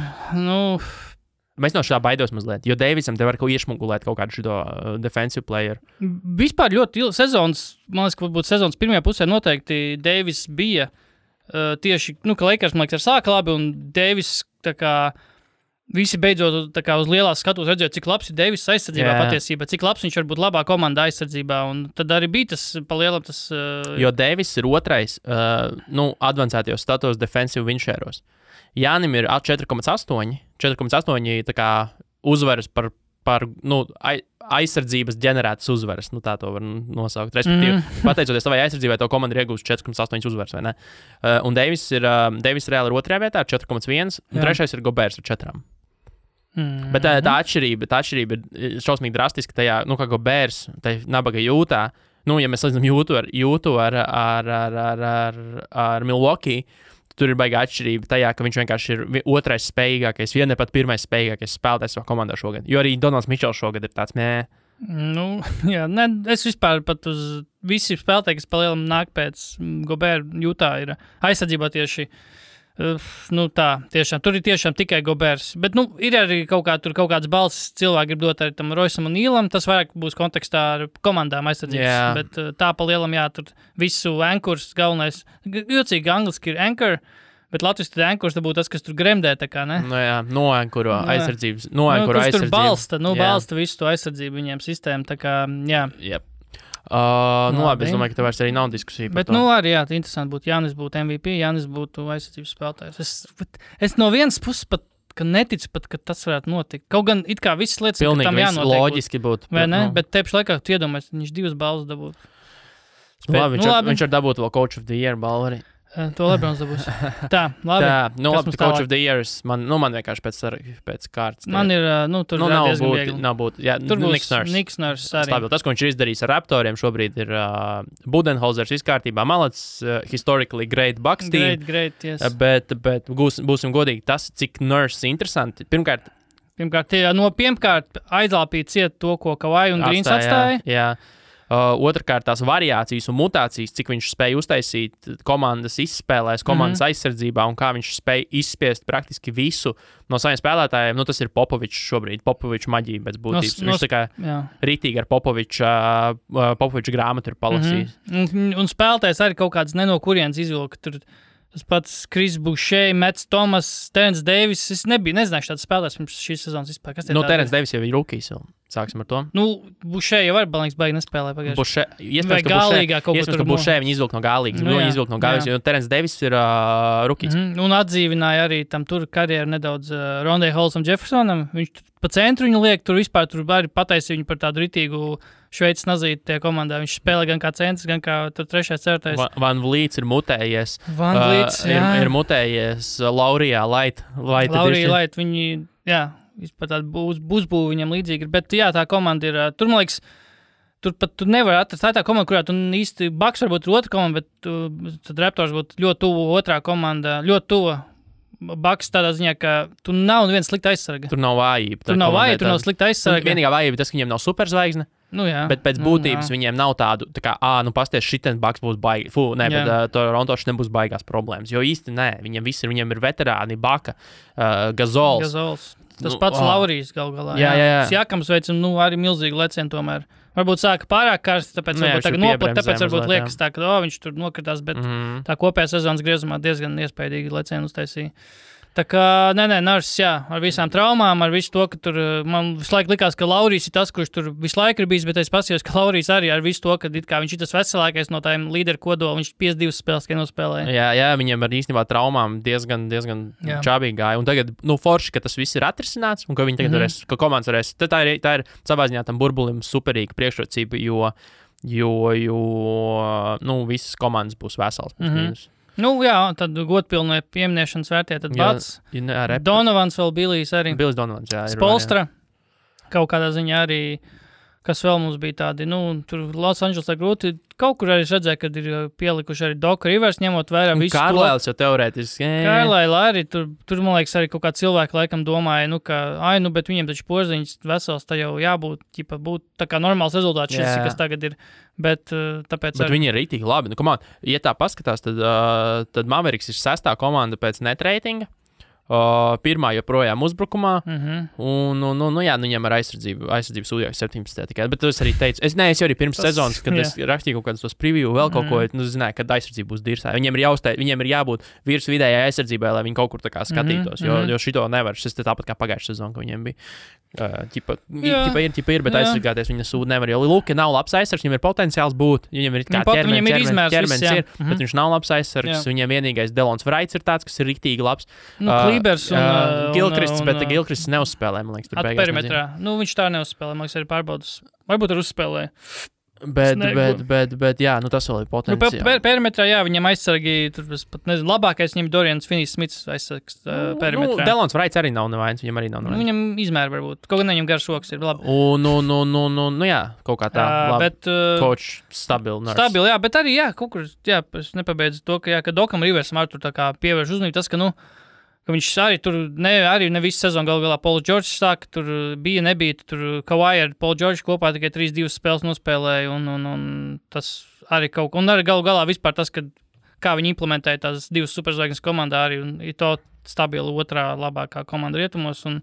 Mēs no šā baidos mazliet, jo Deivisam te var iešmugulēt kaut kādu šito defensive player. Vispār ļoti sezonas, man liekas, ka varbūt sezonas pirmajā pusē noteikti Deivis bija tieši, ka Lakers, man liekas, sāka labi, un Deivis tā kā visi beidzot tā kā uz lielās skatos redzēja, cik labs ir Deivis aizsardzībā patiesībā, cik labs viņš var būt labā komandā aizsardzībā, un tad arī bija tas palielam tas... Jo Deivis ir otrais, advancētajos statos defensive winšēros. Jānim ir 4,8 tā kā uzvaras par aizsardzības ģenerētas uzvaras, tā to var nosaukt. Respektīvi, pateicoties savai aizsardzībai, to komanda ir iegūst 4,8 uzvaras, vai ne? Un Deivis reāli ir 2. vietā ar 4,1, un 3. ir Gobērs ar 4. Bet tā atšķirība ir šausmīgi drastiska tajā, kā Gobērs, tai nabaga Jūtā, ja mēs salīdzinām Jūtu ar Milwaukee, tur ir baigā atšķirība tajā, ka viņš vienkārši ir 2. spējīgākais, ne pat 1. spējīgākais spēlētājs savā komandā šogad. Jo arī Donalds Mičels šogad ir tāds, es vispār pat uz visi spēlētāji, kas palielam nāk pēc Gobēra Jūtā, ir aizsardzībā tieši, tiešām, tur ir tiešām tikai Gobērs. Bet, ir arī kaut kāds balss cilvēki grib dot arī tam Roisam un Nīlam, tas vairāk būs kontekstā ar komandām aizsardzības. Bet tā palielam, tur visu ankurs galvenais, jocīgi angliski ir anchor, bet latviski tad ankurs būtu tas, kas tur gremdē, tā kā, ne? Noankuro aizsardzības. Kurš tur balsta visu to aizsardzību viņiem sistēmu, tā kā, labi, es domāju, ka tev vairs arī nav diskusija par to. Bet, arī, interesanti būtu, Jānis būtu MVP, Jānis būtu aizsardzības spēlētājs. Es no vienas puses pat, ka neticu pat, ka tas varētu notikt. Kaut gan it kā visas lietas, ka tam jānotiek. Pilnīgi loģiski būtu. Vai ne? Bet te pašlaikā tu iedomājies, viņš 2 balvas dabūtu. Viņš var dabūt vēl Coach of the Year balvu arī. To Lebrons dabūs. Tā, labi. Coach of the Years, man vienkārši pēc kārtas. Man ir, tur nav būt. Jā, tur būs Niks Nurse arī. Stabil. Tas, ko viņš ir izdarījis ar Raptoriem šobrīd, ir Budenholzers viskārtībā. Malats, historically great Bucks team. Great, yes. Bet būsim godīgi, tas, cik Nurse interesanti. Pirmkārt, aizlāpīt ciet to, ko Kawhi un Greens atstāja. Jā. Otrkārt, tās variācijas un mutācijas, cik viņš spēja uztaisīt komandas izspēlēs, komandas aizsardzībā un kā viņš spēja izspiest praktiski visu no saviem spēlētājiem. Tas ir Popovičs šobrīd, Popovičs maģija pēc būtības. Viņš tā kā ritīgi ar Popoviča grāmatu ir palasījis. Un spēlētājs arī kaut kāds ne no kurienes izvilka. Tur tas pats Kris Bušē, Mets Tomas, Terence Davis. Es nezināšu tādu spēlētājs pirms šīs sezonas vispār. Terence Davis jau ir rookies. Sāksim ar to. Bušē jau var balīgs baigi nespēlē pagājuši. Iespējams, ka Bušē viņi izvilk no gālīgas. Viņi izvilk no gālīgas, jo Terence Davis ir rookies. Un atdzīvināja arī tam tur karjeru nedaudz Rondē Holsam Jeffersonam. Viņš pa centru viņu liek, tur vispār tur arī pataisīja viņu par tādu ritīgu Šveices nazīti tajā komandā. Viņš spēlē gan kā centrs, gan kā tur 3. ceturtais. Van Vliets ir mutējies. Ir mutējies Laurijā Light. Laurija Light, viņi, vispār tāda uzbūve viņam līdzīga ir, bet tā komanda ir, tur, man liekas, tur pat tu nevar atrast, tā komanda, kurā tu īsti, Bucks varbūt ir otra komanda, bet tad Raptors būtu ļoti tuvu otrā komanda, ļoti tuvu Bucks tādā ziņā, ka tu nav neviens slikta aizsarga. Tur nav vājība. Tur nav slikta aizsarga. Vienīgā vājība tas, ka viņiem nav superzvaigzne. Bet pēc būtības viņiem nav tādu, tā kā, pasties, šitas Bucks būs baigi. Bet Toronto šitam būs baigās problēmas. Jo īsti nē, viņiem ir veterāni, Baka, Gazols. Tas pats Laurijs gal galā. Jākams veic, arī milzīgi lecieni tomēr. Varbūt sāka pārāk karsti, tāpēc varbūt tagad noplat, tāpēc varbūt liekas tā, ka viņš tur nokritās, bet tā kopējā sezonas griezumā diezgan iespaidīgi lecieni uztaisīja. Tā kā, Nurse, ar visām traumām, ar visu to, ka tur, man visu laiku likās, ka Laurijs ir tas, kurš tur visu laiku ir bijis, bet es paskatījos, ka Laurijs arī ar visu to, ka viņš ir tas veselākais no tādiem līderu kodola, viņš 52 spēles tikai nospēlēja. Jā, viņiem ar īstenībā traumām diezgan čābīgi gāja. Un tagad, forši, ka tas viss ir atrisināts, un ka viņi tagad varēs, ka komandas varēs, tā ir savā ziņā tam burbulim superīga priekšrocība, jo visas komandas būs vesels. Nu, jā, tad godpilnie pieminēšanas vērtē, tad Bats, Donovans vēl Bilijs arī. Bilijs Donovans, jā. Spolstra, kaut kādā ziņā arī, kas vēl mums bija tādi, tur Los Angelesā grūti, kaut kur arī redzēju, kad ir pielikuši arī Doc Rivers, ņemot vērā visu to. Kārlēls jau teorētiski. Kārlēla arī, tur man liekas, arī kaut kā cilvēki laikam domāja, bet viņiem taču porziņas vesels, tā jau jābūt, būt tā kā normāls rezultāts šis, kas tagad ir, bet tāpēc bet viņi ir rītīgi labi. Ja tā paskatās, tad Mavericks ir 6. komanda pēc net reitinga. Pirmā joprojām uzbrukumā, viņam ar aizsardzību sūdījās 17. tikai, bet es arī teicu, es jau arī pirms sezonas, kad es rakstīju kaut kādus tos preview, vēl kaut ko, zināju, kad aizsardzība būs dirsā. Viņiem ir jābūt virs vidējai aizsardzībai, lai viņi kaut kur tā kā skatītos, jo šito nevar, šis tāpat kā pagājušā sezona, ka viņiem bija. Ir, bet aizsargāties viņa sūda nevar, jo Luka nav labs aizsargs, viņam ir potenciāls būt, viņam ir kā ķermenis ir, bet viņš nav labs aizsargs, viņam vienīgais Delons Wrights ir tāds, kas ir riktīgi labs. Klibers un Gilkrists, bet Gilkrists neuzspēlē, man liekas, tur beigās. Perimetrā. Viņš tā neuzspēlē, man liekas, arī pārbaudas. Varbūt ar uzspēlēju. Bet jā, tas vēl ir potenciāli. Perimetrā, jā, viņam aizsargi, tur pat nezinu, labākais viņam Dorians Finney-Smiths aizsargs perimetrā. Delons Wrights arī nav nevainas, viņam arī nav nevainas. Viņam izmēra varbūt, kaut gan viņam garš rokas ir labi. Jā, kaut kā tā, labi. Coach stabili. Stabili, jā, bet arī, jā, kaut kur, jā, es nepabeidzu to, ka Dokam Riversam arī tur tā kā pievērš uzmanību tas, ka viņš arī tur arī ne visu sezonu galā Pauls Džordžs sāka, tur nebija, tur Kawhi ar Paul Džordžu kopā tikai 3-2 spēles nospēlēja, un tas arī kaut ko, un arī galā vispār tas, kā viņi implementēja tās 2 superzvaigznes komandā arī, un ir to stabila otrā labākā komanda rietumos, un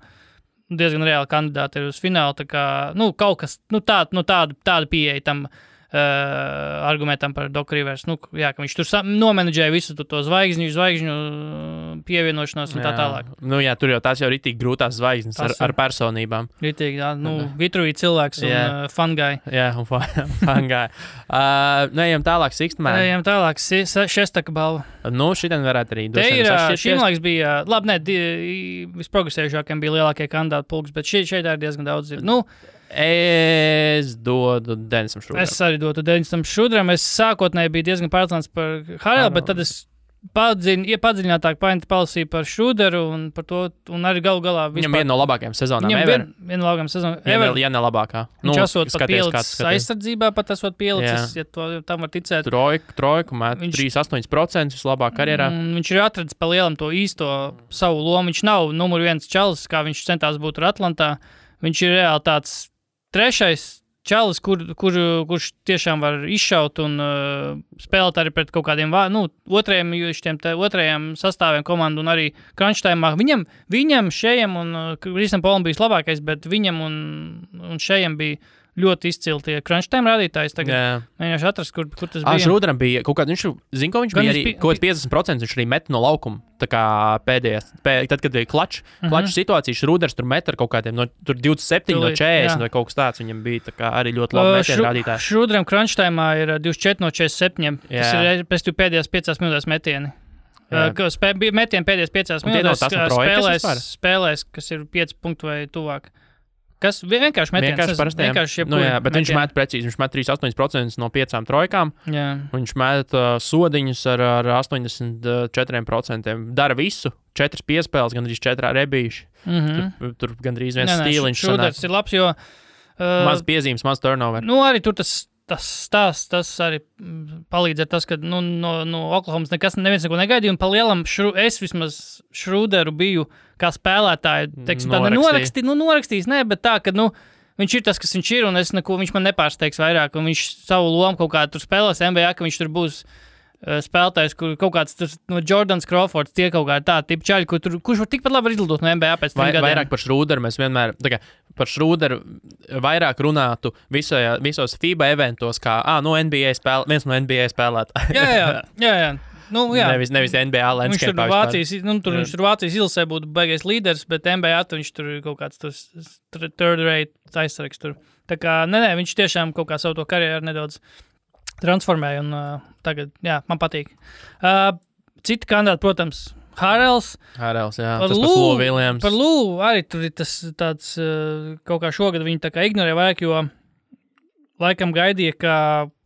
diezgan reāli kandidāti ir uz finālu, tā kā, kaut kas, tāda pieeja tam argumentam par Doc Rivers, ka viņš tur nomenedžēja visu to zvaigžņu pievienošanos un tā tālāk. Tur jau tās jau ritīgi grūtās zvaigznes ar personībām. Ritīgi, jā, vitruīgi cilvēks un fungai. Jā, un fungai. Ejam tālāk, Sixtman. Ejam tālāk, šestaka balva. Šitien varētu arī te ir, šim laiks bija, labi, visprogresējušākiem bija lielākie kandidāti pulks, bet šeit ir diezgan daudz. Es dodu Denisam Šrudram. Es arī dodu Denisam Šrudram. Es sākotnēji biju diezgan pārliecināts par Harelu, bet tad es padziļinātāk palasīju par Šruderu un par to, un arī galu galā vispār. Viņam viena no labākajām sezonām ever. Viena no labākajām sezonām ever. Ja ne labākā. Viņš esot pat pielicis aizsardzībā, pat esot pielicis, ja tam var ticēt. Trojku mēt 3,8% vislabāk karjerā. Viņš ir atradis pa lielam to īsto savu lomu. Viņš nav numur 1 čalis, kā viņš centās būt ar Atlantā. Viņš ir reāli tāds trešais čalis, kurš tiešām var izšaut un spēlēt arī pret kaut kādiem otrajiem sastāviem komandu un arī crunch time'ā. Viņam šejam un Krisam Polam bija labākais, bet viņam un šejam bija ļoti izcili tie crunch time rādītājs. Tagad mēģināšu atrast, kur tas bija. Šrudram bija kaut kāds, viņš bija arī kaut 50%, viņš arī met no laukuma. Tā kā pēdējās, tad, kad bija klačs situācija, Šruders tur met ar kaut kādiem, tur 27 no 40 vai kaut kas tāds, viņam bija tā kā arī ļoti labi metienu rādītāji. Šrudram crunch time'ā ir 24 no 47, tas ir pēc pēdējās 5 minūtēs metieni. Metieni pēdējās 5 minūtēs spēlēs, kas ir 5 punktu vai tuvāk. Kas vienkārši metiens. Bet viņš met precīzi. Viņš met 3,8% no 5 trojkām. Jā. Viņš met sodiņus ar 84%. Dara visu. 4 piespēles, gandrīz 4 rebīši. Tur gandrīz viens stīliņš. Šruders ir labs, jo... maz piezīmes, maz turnover. Arī tur tas arī palīdz ar tas, ka no Oklahomas neviens neko negaidīja, un pa lielam es vismaz Šruderu biju kā spēlētāju, norakstījis, bet tā, ka, viņš ir tas, kas viņš ir, un viņš man nepārsteigs vairāk, un viņš savu lomu kaut kā tur spēlēs NBA, ka viņš tur būs spēlētājs, kur kaut kāds no Jordans Crawfords tie kaut kā tā tipa čaļi, kurš var tikpat labi izlidot no NBA pēc 3 gadiem. Vairāk par Šruderu mēs vienmēr, par Šruderu vairāk runātu visos FIBA eventos, kā, viens no NBA spēlētājiem. Jā. Nevis NBA landscape. Viņš tur Vācijas izlasē būtu baigais līderis, bet NBA viņš tur kaut kāds third rate aizsargs tur. Tā kā, viņš tiešām kaut kā savu to karjeru nedaudz transformēja, un tagad, man patīk. Citi kandidāti, protams, Harels, jā, tas pats Lou Williams. Par Lou arī tur ir tas tāds, kaut kā šogad viņi tā kā ignorē vairāk, jo laikam gaidīja, ka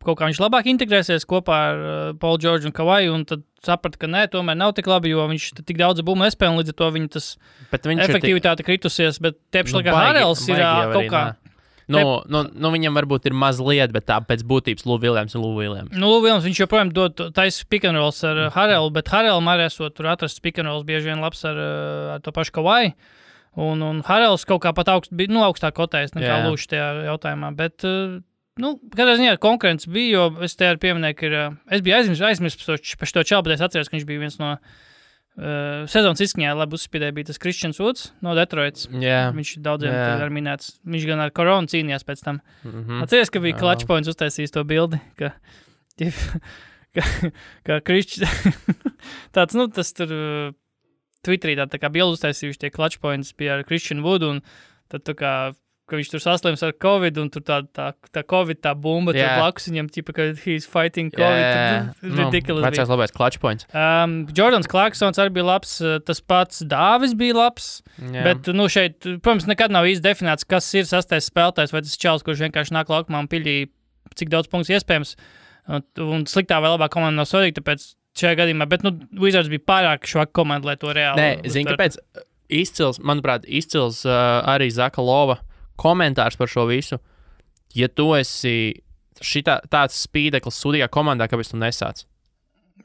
kaut kā viņš labāk integrēsies kopā ar Paulu Džordžu un Kavaju, un tad saprata, ka nē, tomēr nav tik labi, jo viņš tik daudz bumbu nespēja, un līdz ar to viņa tas efektivitāte kritusies, bet tiepši laikā Harrells ir kaut kā. Viņam varbūt ir mazliet, bet tā pēc būtības Lou Williams. Lou Williams, viņš joprojām dod taisa pick and rolls ar Harrellu, bet Harrellam arī esot tur atrasts pick and rolls bieži vien labs ar to pašu Kavaju. Un Harrells kaut kā pat augstāk kotējis nekā Lūš tajā jautājumā, bet... katrā ziņā konkurence bija, jo es te arī pieminēju, ka es biju aizmirsis par šo čalu, bet es atceros, ka viņš bija viens no sezonas izskaņā, labi uzspīdēja, bija tas Christians Woods no Detroits. Viņš daudziem arī minēts. Viņš gan ar koronu cīnījās pēc tam. Atceries, ka bija Clutch Points uztaisījis to bildi, ka Christians... tāds, tas tur Twitterī tā kā bildi uztaisījuši tie Clutch Points bija ar Christian Wood, un tad tā kā ka viņš tur saslims ar Covid, un tur tā Covid, tā bumba, tur blakus viņam, ka he's fighting Covid. Ridiculous. Vecais labais Clutch Points. Jordans Clarksons arī bija labs, tas pats Dāvis bija labs, bet, šeit, protams, nekad nav īsti definēts, kas ir sastais spēlētājs, vai tas čals, kurš vienkārši nāk laukumā un piļī, cik daudz punktus iespējams, un sliktā vai labā komanda nav svarīga, tāpēc šajā gadījumā, bet, Wizards bija pārāk švaka komanda, lai to reāli. Nē, zini, kāpēc izcils arī Zaka Lova komentārs par šo visu. Ja tu esi tāds spīdeklis sudīgā komandā, kāpēc tu nesāc?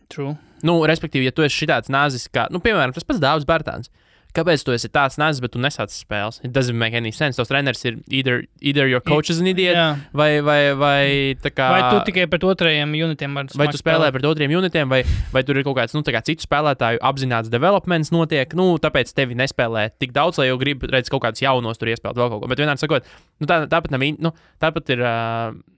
True. Respektīvi, ja tu esi šitāds nazis, kā, piemēram, tas pats Dāvis Bērtāns. Kāpēc tu esi tāds nazis, bet tu nesāc spēles? It doesn't make any sense. Tos treneris ir either your coach is an idiot, vai tā kā... Vai tu tikai pret otrajiem unitiem var vai tu spēlē pret otriem unitiem, vai tur ir kaut kāds, tā kā citu spēlētāju apzināts developments notiek, tāpēc tevi nespēlē tik daudz, lai jau grib redzēt kaut kādus jaunos tur iespēlēt vēl kaut ko. Bet vienmēr sakot, tāpat ir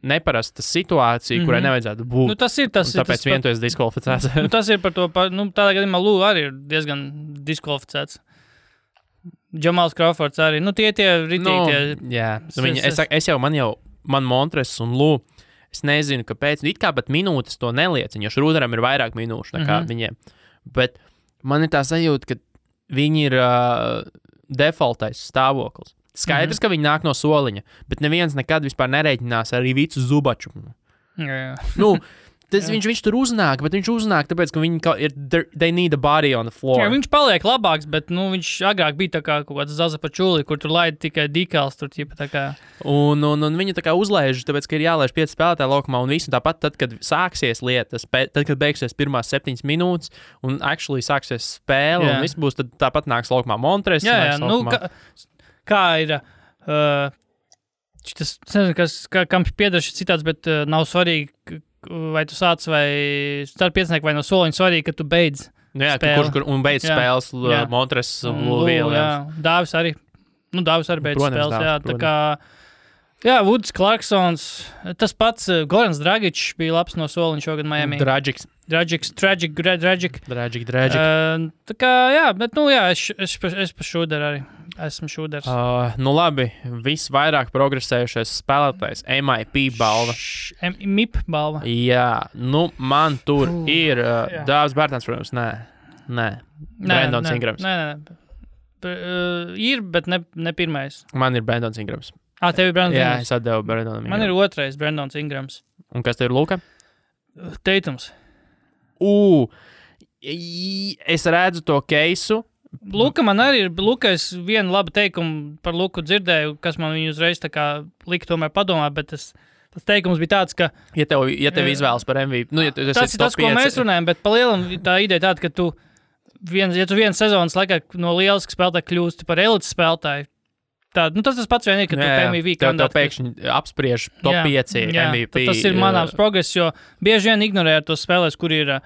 neparasta situācija, kurai nevajadzētu būt. Tāpēc vien tu esi diskvalificēts. Tas ir par to, tādā gadījumā Lou arī ir diezgan diskvalificēts. Džamals Crawfords arī. Tie ritīgi. Man Montres un Lou, es nezinu, kāpēc. It kā pat minūtes to neliecina, jo Šrūderam ir vairāk minūšu nekā viņiem. Bet man ir tā sajūta, ka viņi ir defaultais stāvoklis. Skaidrs, ka viņi nāk no soliņa, bet neviens nekad vispār nereiķinās arī Vicu Zubaču. Viņš tur uznāk, bet viņš uznāk, tāpēc, ka viņi they need a body on the floor. Viņš paliek labāks, bet, viņš agrāk bija tā kā kaut kāds Zaza Pačuli, kur tur laida tikai dekals, tur ķipa tā kā. Un viņi tā kā uzlaiž, tāpēc, ka ir jālaiž 5 spēlētāji laukumā, un visu tāpat tad, kad sāksies lietas, tad, kad beigsies pirmās 7 minūtes, un actually sāksies spēle, un viss būs, tad tāpat nāks laukumā Montres. Kā ir... Tas, nezinu, kam piedara šis citāds, bet nav svarīgi, vai tu sāc vai starp piecinieki vai no soliņa svarīgi, ka tu beidz spēli. Un beidz spēles Montres un Lūvīl. Dāvis arī. Dāvis arī beidz spēles. Tā kā, Woods, Clarksons, tas pats Gorans Dragičs bija labs no soliņa šogad Miami. Dragic. Tā kā, bet, es pa šūderu arī. Esmu šūders. Labi, visvairāk progresējušais spēlētājs, MIP balva. MIP balva? Jā, man tur ir Dāvis Bērtāns, protams, nē. Brandons Ingrams. Nē. Ir, bet ne pirmais. Man ir Brandons Ingrams. Tev ir Brandons Ingrams? Jā, es atdevu Brandonam Ingrams. Man ir otrais Brandons Ingrams. Un kas tev ir Luka? Teitums. Es redzu to keisu. Luka man arī ir, es vienu labu teikumu par Luku dzirdēju, kas man viņu uzreiz tā kā lika tomēr padomāt, bet tas teikums bija tāds, ka... Ja tev izvēlas par MVP, tas ir tas, ko mēs runājam, bet pa lielam tā ideja tāda, ka tu viens sezonas laikā no lieliska spēlētāja kļūsti par elites spēlētāju, tas pats vien ir, ka tu MVP kandidāti. Tev pēkšņi apspriež top 5 MVP. Tas ir manāms progress, jo bieži vien ignorē tos spēlēs, kur ir...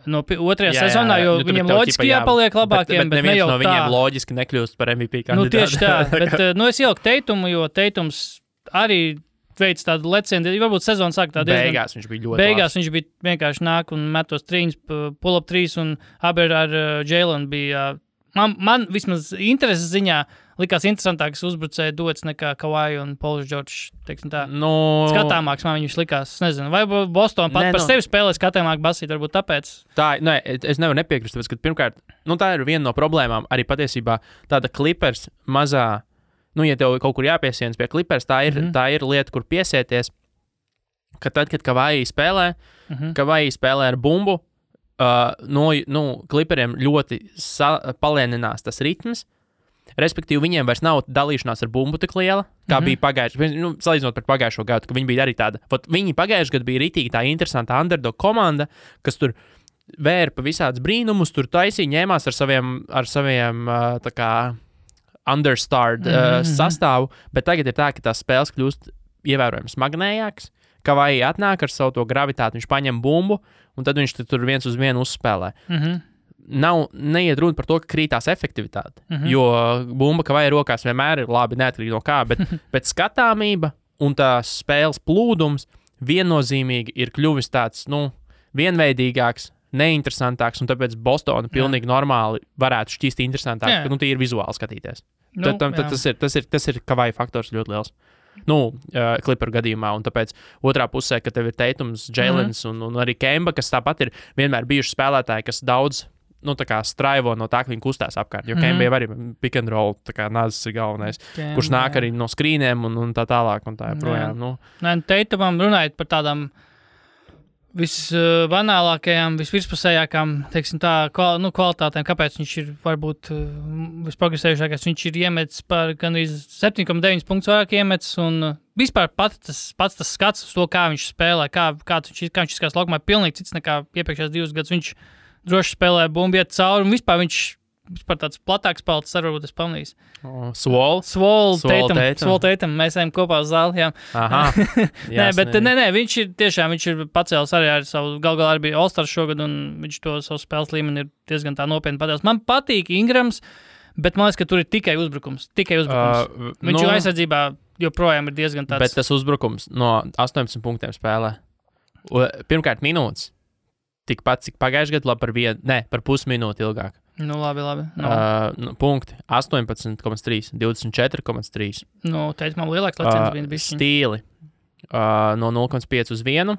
No otrajā sezonā, jo viņiem loģiski jāpaliek labākiem, bet ne jau tā. No viņiem loģiski nekļūst par MVP kandidātu. Tieši tā, bet es ieliku Teitumu, jo Teitums arī veids tādu lecienu, varbūt sezonu sāk tā diezgan... Beigās viņš bija ļoti Beigās viņš bija vienkārši nāk un metos trīņas, pull-up 3 un abi ar Jalen bija... Man vismaz intereses ziņā likās interesantāks uzbrucēja dots nekā Kawhi un Pauls Džordžs, teiksim tā. Skatāmāks man viņš likās, nezinu, vai Boston pat par sevi spēlē skatāmāk basīt, varbūt tāpēc. Es nevaru nepiekrist, tāpēc, ka pirmkārt, tā ir viena no problēmām, arī patiesībā tāda Clippers mazā, ja tev kaut kur jāpiesienas pie Clippers, tā ir lieta, kur piesieties. ka tad, kad Kavaji spēlē, Kavaji spēlē ar bumbu, Clipperiem ļoti palēninās tas ritms. Respektīvi, viņiem vairs nav dalīšanās ar bumbu tik liela, kā bija pagājušajā gadā. Salīdzinot par pagājušo gadu, ka viņi bija arī tāda. Viņi pagājušajā gadā bija ritīgi tā interesanta underdog komanda, kas tur vērpa visādus brīnumus, tur taisīja, ņēmās ar saviem tā kā understarred sastāvu, bet tagad ir tā, ka tās spēles kļūst ievērojami smagnējākas. Kavaji atnāk ar savu to gravitāti, viņš paņem bumbu, un tad viņš tur viens uz vienu uzspēlē. Neiet runa par to, ka krītās efektivitāte, jo bumba Kavaji rokās vienmēr ir labi, neatkarīgi no kā, bet skatāmība un tās spēles plūdums viennozīmīgi ir kļuvis tāds, vienveidīgāks, neinteresantāks, un tāpēc Bostona pilnīgi normāli varētu šķist interesantāks, ka tie ir vizuāli skatīties. Tas ir Kavaji faktors ļoti liels. Clipper gadījumā, un tāpēc otrā pusē, ka tev ir Tatums, Jailens un arī Kemba, kas tāpat ir vienmēr bijuši spēlētāji, kas daudz tā kā straivo no tā, ka viņi kustās apkārt, jo Kemba jau arī pick and roll, tā kā Nazis ir galvenais, kurš nāk arī no skrīniem un tā tālāk, un tā joprojām. Tatumam runājot par tādām visbanālākajām, visvirspusējākām, teiksim tā, kvalitātēm, kāpēc viņš ir varbūt visprogresējušākais. Viņš ir iemetis par gandrīz 7,9 punktus vairāk iemetis, un vispār pats tas skats uz to, kā viņš spēlē, kā viņš izskatās laukumā, ir pilnīgi cits nekā iepriekšējās 2 gadus. Viņš droši spēlē bumbu, iet cauri, un vispār viņš tāds platāks palds, varbūt es pamanīju. Swole Tatum. Mēs ejam kopā uz zāli. Viņš ir pacēlis arī ar savu, galā arī bija All-Stars šogad, un viņš to savu spēles līmeni ir diezgan tā nopietni padēlis. Man patīk Ingrams, bet man liekas, ka tur ir tikai uzbrukums. Viņš jau aizsardzībā joprojām ir diezgan tāds. Bet tas uzbrukums no 18 punktiem spēlē. Pirmkārt minūtes. Tikpat, cik pagājušajā gadā, par pusminūti ilgāk. Labi. Punkti 18,3, 24,3. Teikt, man lielāks leciens bija. Stīli no 0,5 uz 1,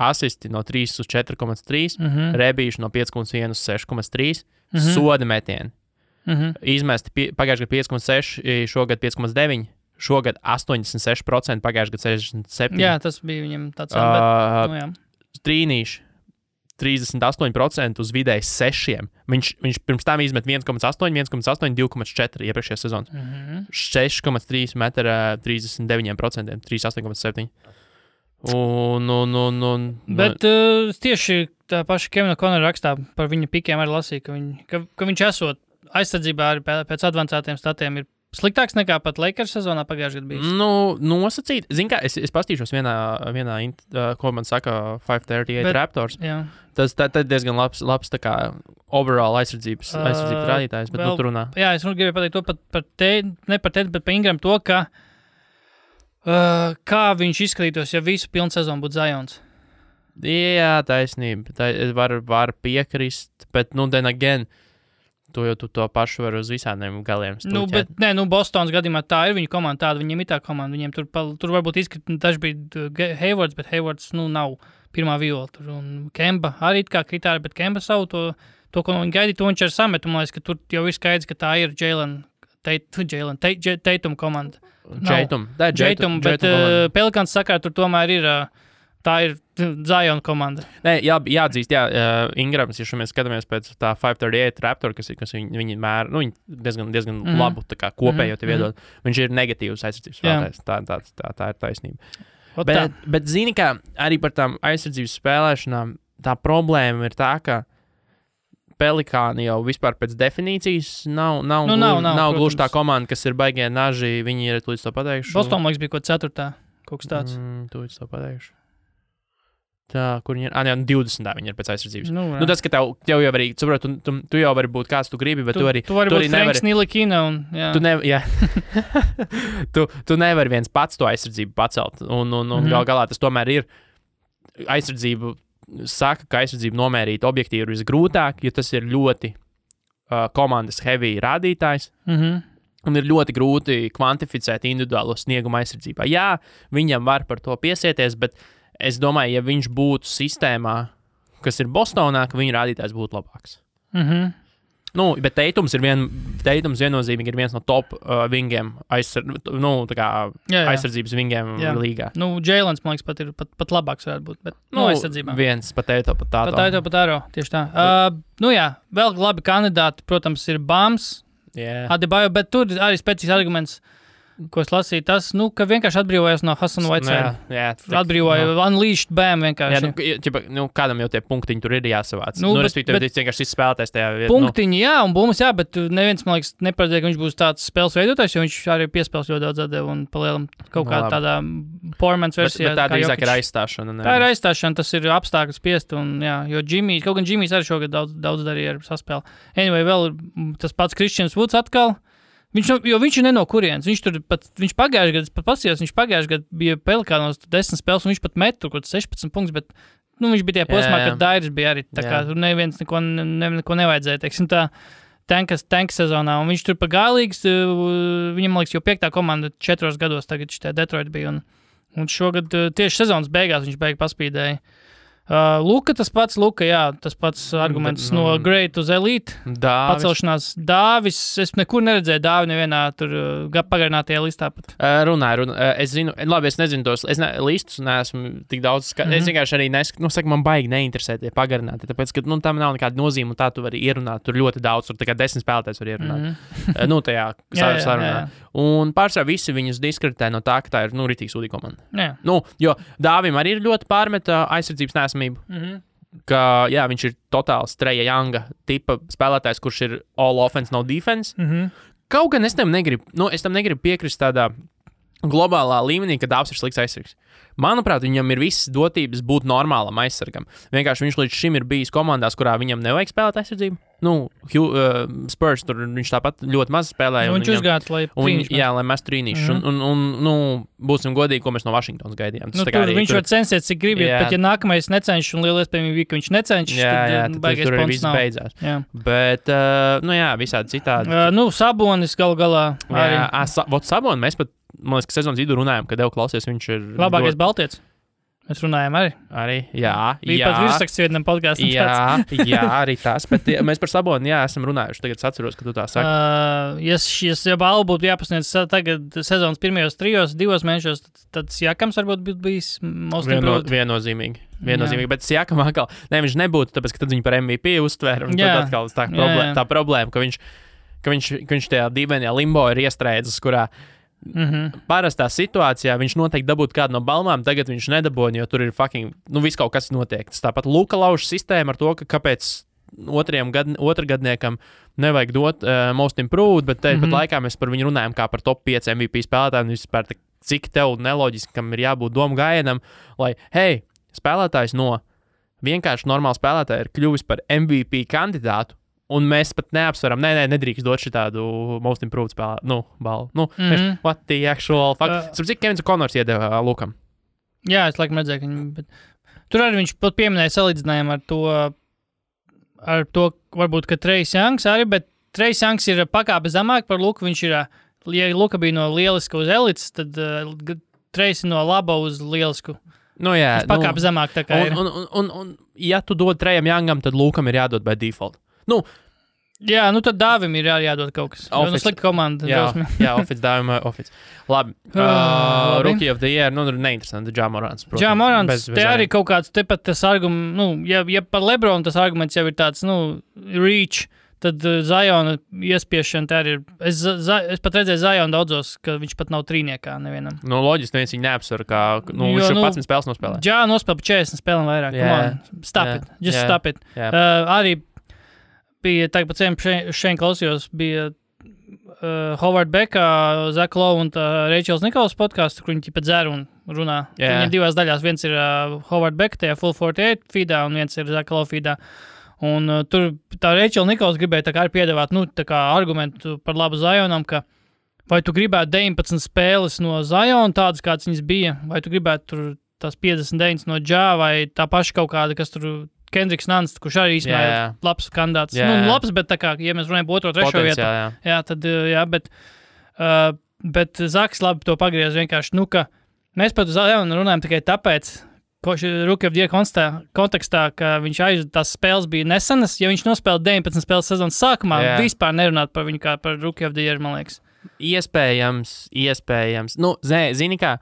asisti no 3 uz 4,3, rebīši no 5,1 uz 6,3, soda metieni. Izmesti pagājušajā gadā 5,6, šogad 5,9, šogad 86%, pagājušajā gadā 67%. Jā, tas bija viņam tāds. Trīnīši. 38% uz vidēji 6. Viņš pirms tam izmet 1,8, 1,8, 2,4 iepriekšējā sezonā. 6,3 metra 39%, 38,7. Bet tieši tā paša Kevina Konora rakstā par viņa pikiem arī lasīja, ka viņš esot aizsardzībā arī pēc advancētiem statiem ir sliktāks nekā pat Lakers sezonā pagājušajā gadā bijis. Nosacīt. Zini kā, es pastīšos vienā ko man saka 538 Raptors. Jā. Tas diezgan labs tā kā overall aizsardzības rādītājs, bet tu runā. Jā, es gribēju pateikt to ne par te, bet par Ingram to, ka kā viņš izskatītos, ja visu pilnu sezonu būtu Zions. Jā, taisnība. Var piekrist, bet then again, tu to pašu var uz visādiem galiem stūķēt. Bostonas gadījumā tā ir viņa komanda, tāda viņiem ir tā komanda. Viņiem tur varbūt izskatīt, daži bija Haywards, bet Haywards, nav pirmā viola. Un Kemba arī kā kritāri, bet Kemba savu to, ko viņi gaidīja, to viņš ar sametu. Man liekas, ka tur jau ir skaidrs, ka tā ir Tatum komanda. Tatum, bet Pelikans sakā, tur tomēr ir... Tā ir Zion komanda. Jāatzīst, Ingrams, ja mēs skatāmies pēc tā 538 Raptor, kas viņi mēra, viņi diezgan labu tā kā kopējo te viedot. Viņš ir negatīvs aizsardzības spēlētājs. Tā ir taisnība. Bet zini, kā arī par tām aizsardzības spēlēšanām, tā problēma ir tā, ka Pelikāni jau vispār pēc definīcijas nav gluži tā komanda, kas ir baigie naži, viņi ir līdz to pateikšu. Boston, liekas, bija 4. kaut kas tāds. Līdz to pateikšu. Tā, kur viņi ir? 20. Viņi ir pēc aizsardzības. Tas, ka tev jau arī, saprot, tu jau vari būt kāds tu gribi, bet tu arī būt Franks Nilikina un, jā. Tu nevari viens pats to aizsardzību pacelt. Un galā tas tomēr ir aizsardzību, saka, ka aizsardzību nomērīt objektīvi ir visgrūtāk, jo tas ir ļoti komandas heavy rādītājs. Un ir ļoti grūti kvantificēt individuālo sniegumu aizsardzībā. Jā, viņam var par to piesieties, bet es domāju, ja viņš būtu sistēmā, kas ir Bostonā, ka viņa rādītājs būtu labāks. Bet Teitums viennozīmīgi ir viens no top vingiem, aizsardzības vingiem līgā. Jēlens, man liekas, pat ir pat labāks varētu būt, bet aizsardzībā. Viens pat Teito, pat Tāto. Pat Teito, pat Tāro, tieši tā. Vēl labi kandidāti, protams, ir Bams, Adebayo, bet tur arī spēcīgs arguments, ko es lasīju, tas, ka vienkārši atbrīvojās no Hasana Whiteside. Atbrīvoja, unleashed bam vienkārši. Kādam jau tie punktiņi tur ir jāsavāc. Respektīvi, vienkārši spēlētājs tajā vietā. Punktiņi, un bumas, bet neviens, man liekas, neparedzēja, ka viņš būs tāds spēles veidotājs, jo viņš arī piespēles ļoti daudz atdeva un palielam kaut kā tādā powermans versijā. Bet tā drīzāk ir aizstāšana. Tā ir aizstāšana, tas ir apstākļus spiest, un jo kaut gan Jimmijs arī šogad daudz darīja ar saspēli. Anyway, vēl tas pats Christians Woods atkal. Viņš ir ne no kurienes. Viņš pagājušajā gadā bija Pelikānos 10 spēles, un viņš pat met tur kaut 16 punktus, bet viņš bija tie posmā, kad Dairis bija arī. Tā kā tur neviens neko nevajadzēja, teiksim tā, tanka sezonā. Un viņš tur pa gālīgs, viņam, liekas, jau 5. komanda 4 gados tagad šitie Detroit bija. Un šogad tieši sezonas beigās viņš paspīdēja. Luka, tas pats arguments no great uz elite. Pacelšanās. Dāvis, es nekur neredzēju Dāvi nevienā tur pagarinātajā listā pat. Runāju. Es zinu, labi, es nezinu tos listus, neesmu tik daudz Es vienkārši arī man baigi neinteresē tie pagarināti, tāpēc, ka tam nav nekāda nozīme, un tā tu vari ierunāt, tur ļoti daudz, tur tikai 10 spēlētājs var ierunāt. Tajā sarunā. Un pārsvarā visi viņus diskreditē no tā, ka tā ir, ritīgi sūdīga komanda. Jo Dāvim arī ir ļoti pārmeta aizsardzības nesamību. Ka, viņš ir totāls Treja Younga tipa spēlētājs, kurš ir all offense, no defense. Kaut gan es tam negribu piekrist tādā globālā līmenī, ka Dāvs ir slikts aizsargs. Manuprāt, viņam ir visas dotības būt normālam aizsargam. Vienkārši viņš līdz šim ir bijis komandās, kurā viņam nevajag spēlēt aizsardzību. Spurs tur viņš tāpat ļoti maz spēlēja. Viņš uzgāja, lai mēs trīnīšu. Un būsim godīgi, ko mēs no Vašingtonas gaidījām. Viņš var censties, cik grib, bet ja nākamais necenšas, un liela iespējamība bija, ka viņš necenšas, tad baigais tur ponts nav. Beidzās. Bet, visādi citādi. Sabonis galu galā arī. Sabonis, mēs pat, man liekas, ka sezonas vidū runājām, kad klausies, viņš ir labākais baltietis. Mēs runājām arī. Jā. Bija pat virsraksts vienam podkāstam. Jā, arī tas. Bet mēs par Saboni, esam runājuši. Tagad es atceros, ka tu tā saki. Ja balvu būtu jāpasniedz tagad sezonas pirmajos 2 mēnešos, tad Siakams varbūt būtu bijis most improved. Viennozīmīgi. Bet Siakam atkal, viņš nebūtu, tāpēc, ka tad viņu par MVP uztvēra. Un tad atkal tā problēma, ka viņš tajā dīvainajā limbo ir iestrēdzis, kurā parastā situācijā viņš noteikti dabūtu kādu no balvām, tagad viņš nedabūja, jo tur ir viss kaut kas notiek. Tas tāpat Luka lauž sistēma ar to, ka kāpēc otrgadniekam nevajag dot most improved, bet pat laikā mēs par viņu runājam kā par top 5 MVP spēlētājiem, vispār cik tev neloģiskam ir jābūt domu gājienam, lai, spēlētājs no vienkārši normāla spēlētāja ir kļuvis par MVP kandidātu, un mēs pat neapsveram, nedrīkst dot šitādu most improved balvu. What the actual fuck? Cik Kevins Konors iedeva Lukam? Jā, es laikam redzēju, ka viņi... Tur arī viņš pat pieminēja salīdzinājumu ar to varbūt, ka Trejs Youngs arī, bet Trejs Youngs ir pakāpe zemāk par Luku. Viņš ir, ja Luka bija no lieliska uz elites, tad Trejs ir no laba uz lielisku. Pakāpe zemāk tā kā ir. Un ja tu dod Trejam Youngam, tad Lukam ir jādod by default. Tad Dāvim ir jādod kaut kas. Slikta komanda. Office Dāvim, Office. Labi. Rookie of the Year, neinteresanti, Ja Morants. Ja Morants, te arī kaut kāds, tepat tas arguments, ja par Lebronu tas arguments jau ir tāds, reach, tad Ziona iespiešana tā arī ir. Es pat redzēju Zionu daudzos, ka viņš pat nav trīniekā nevienam. Loģiski, neviens viņu neapsver, kā, viņš jau 11 spēles nospēlē. Ja nospēlē 40 spēlēm vairāk. Stop it. Arī bija tagad pat šeit klausījos, bija Howard Becka, Zach Lowe un Rachels Nikolas podkāsts, kur viņi pat dzer un runā. Viņiem 2 daļās. Viens ir Howard Becka, tajā Full 48 feedā, un viens ir Zach Lowe feedā. Un tur tā Rachel Nikolas gribēja tā kā arī piedāvāt, tā kā argumentu par labu Zionam, ka vai tu gribētu 19 spēles no Ziona, tādas, kādas viņas bija, vai tu gribētu tur tās 59 no Ja, vai tā paša kaut kāda, kas tur Kendricks Nunns, kurš arī īstenībā ir labs kandidāts. Labs, bet tā kā, ja mēs runājam par 2. 3. vietu, bet Zaks labi to pagriez vienkārši, ka mēs par Zionu runājam tikai tāpēc, Rookie of the Year kontekstā, ka tās spēles bija nesenas, ja viņš nospēlē 19 spēles sezonas sākumā, vispār nerunāt par viņu kā par Rookie of the Year, man liekas. Iespējams. Nu, zini kā,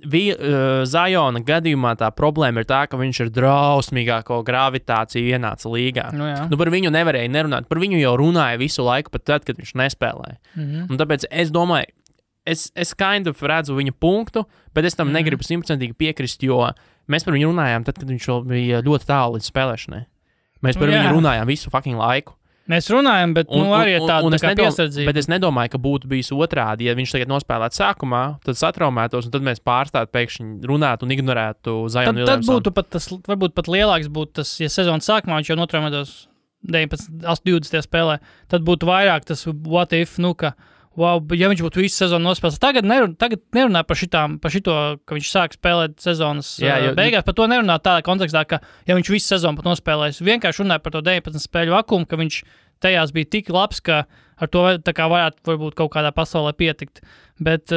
Zajona gadījumā tā problēma ir tā, ka viņš ir drausmīgāko gravitāciju ienāca līgā. Nu, par viņu nevarēja nerunāt, par viņu jau runāja visu laiku, pat tad, kad viņš nespēlēja. Un tāpēc es domāju, es kind of redzu viņa punktu, bet es tam negribu 100% piekrist, jo mēs par viņu runājām tad, kad viņš vēl bija ļoti tālu līdz spēlēšanai. Mēs par viņu runājām visu fucking laiku. Mēs runājam, bet arī tāda tā piesardzība. Bet es nedomāju, ka būtu bijis otrādi. Ja viņš tagad nospēlētu sākumā, tad satraumētos, un tad mēs pārstātu pēkšņi runāt un ignorētu Zionu Williamsonu. Tad būtu pat tas, varbūt pat lielāks būtu tas, ja sezonas sākumā viņš jau notraumētos 20. spēlē, tad būtu vairāk tas what if, ka wow, ja viņš būtu visu sezonu nospēlējis. Tagad nerunā par šito, ka viņš sāk spēlēt sezonas beigās. Par to nerunā tādā kontekstā, ka ja viņš visu sezonu pat nospēlējis, vienkārši runāja par to 19 spēļu vakumu, ka viņš tajās bija tik labs, ka ar to tā kā varētu varbūt kaut kādā pasaulē pietikt. Bet,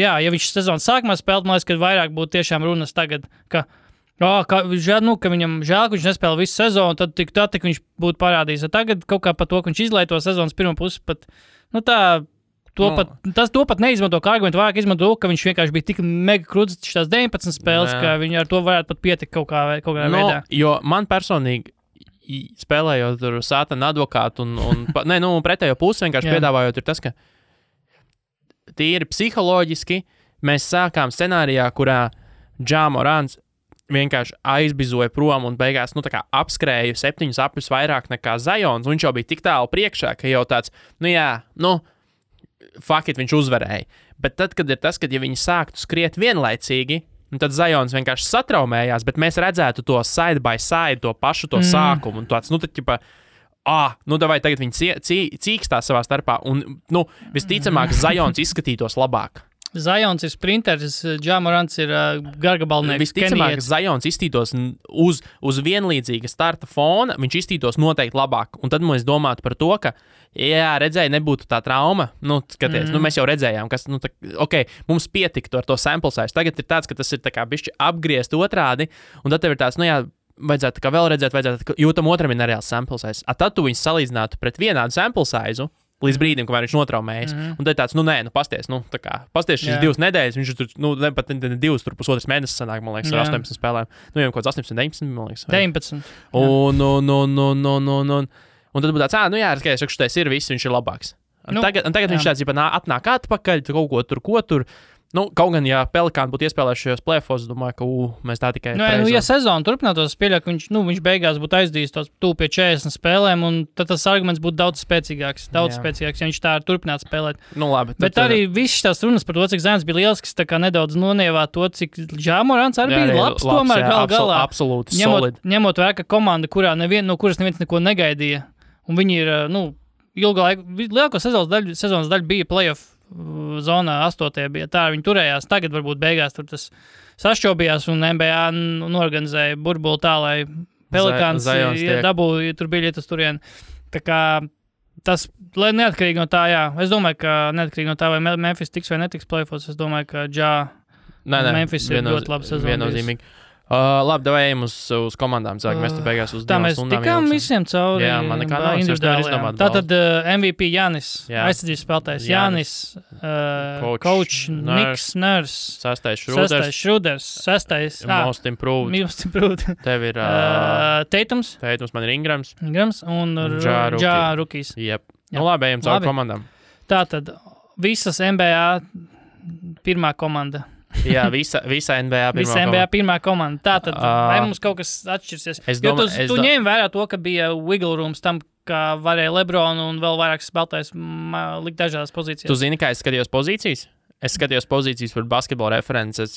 ja viņš sezonas sākumā spēlēt, man liekas, ka vairāk būtu tiešām runas tagad, ka viņam žēl, ka viņš nespēlē visu sezonu, tad tik viņš būtu parādījis. Tagad kaut kā par to, ka viņš izlaiž to sezonas pirmo pusi, pat to pat neizmanto kā argumentu, vairāk izmanto, ka viņš vienkārši bija tik mega krūts šitās 19 spēles, ka viņi ar to varētu pat pietikt kaut kādā veidā. Jo man personīgi, spēlējot tur sātana advokātu un pretējo pusi vienkārši piedāvājot, ir tas, ka tīri psiholoģiski mēs sākām scenārijā, kurā Ja Morants vienkārši aizbizoja prom un beigās, tā kā apskrēja 7 apļus vairāk nekā Zajons, un viņš jau bija tik tālu priekšā, ka jau tāds, fuck it, viņš uzvarēja. Bet tad, kad ir tas, kad ja viņi sāktu skriet vienlaicīgi, tad Zajons vienkārši satraumējās, bet mēs redzētu to side by side, to pašu to sākumu, un tāds, davai tagad viņi cīkstās savā starpā, un, visticamāk, Zajons izskatītos labāk. Zajons ir sprinteris, Ja Morants ir gargabalnieks. Visticamāk, Zajons izstītos uz vienlīdzīga starta fona, viņš izstītos noteikti labāk. Un tad mēs domātu par to, ka, redzēja, nebūtu tā trauma. Skaties, mēs jau redzējām, kas, mums pietiktu ar to sample size. Tagad ir tāds, ka tas ir tā kā bišķi apgriezt otrādi, un tad tev ir tāds, vajadzētu kā vēl redzēt, jo tam otram ir nereāls sample size. Tad tu viņus salīdzinātu pret vienādu sample size līdz brīdim, kamēr viņš notraumējas. Un tad ir tāds, pasties, pasties šīs 2 nedēļas, viņš tur, pat 2, tur pusotras mēnesis sanāk, man liekas, ar 18 spēlēm. Jau kaut kāds 18, 19, man liekas. 19. Un tad būtu tāds, skaties, šitais ir viss, viņš ir labāks. Tagad viņš tāds, atnāk atpakaļ, ko tur. Kaut gan, ja Pelikāni būtu iespēlējuši šajos play-offos, domāju, ka mēs tā tikai... ja sezona turpinātos, pieļauj, ka viņš beigās būtu aizdījis tos tūp pie 40 spēlēm, un tad tas arguments būtu daudz spēcīgāks, ja viņš tā turpinātu spēlēt. Labi. Bet arī viss tās runas par to, cik Zajons bija lielsks, tā kā nedaudz nonievā to, cik Ja Morants arī bija labs, tomēr galā. Absolūti, solid. Ņemot vērā, ka komanda, no kuras neviens neko negaidīja, un viņi ir, ilgā laika, lielāko sezonas daļu bija play-off zonā 8. bija tā, viņi turējās. Tagad varbūt beigās tur tas sašķobījās un NBA norganizēja burbuli tā, lai Pelikāns dabūja, tur bija lietas turien. Tā kā tas, lai neatkarīgi no tā, es domāju, ka neatkarīgi no tā, vai Memphis tiks vai netiks play-offs, es domāju, ka Memphis ir ļoti labi sezonu. Viennozīmīgi. Labi, davai ejam uz komandām. Mēs te beigās uz 2 stundām. Tā mēs tikām visiem cauri. Jā, man nekā nav. Es nevaru izdomāt. Tātad MVP Jānis, aizsardzības spēlētājs Jānis, coach Niks Nurse, 6. Šruders, 6. Most improved. Tev ir Teitums, man ir Ingrams un Ja Rookies. Jep. Labi, ejam cauri komandām. Tātad visas NBA pirmā komanda. Jā, visa NBA pirmā komanda. Tātad, vai mums kaut kas atšķirsies? Tu ņēmi vērā to, ka bija wiggle rooms tam, ka varēja LeBron un vēl vairākas spēlētājs likt dažādās pozīcijās. Tu zini, kā es skatījos pozīcijas? Es skatījos pozīcijas par basketbola references.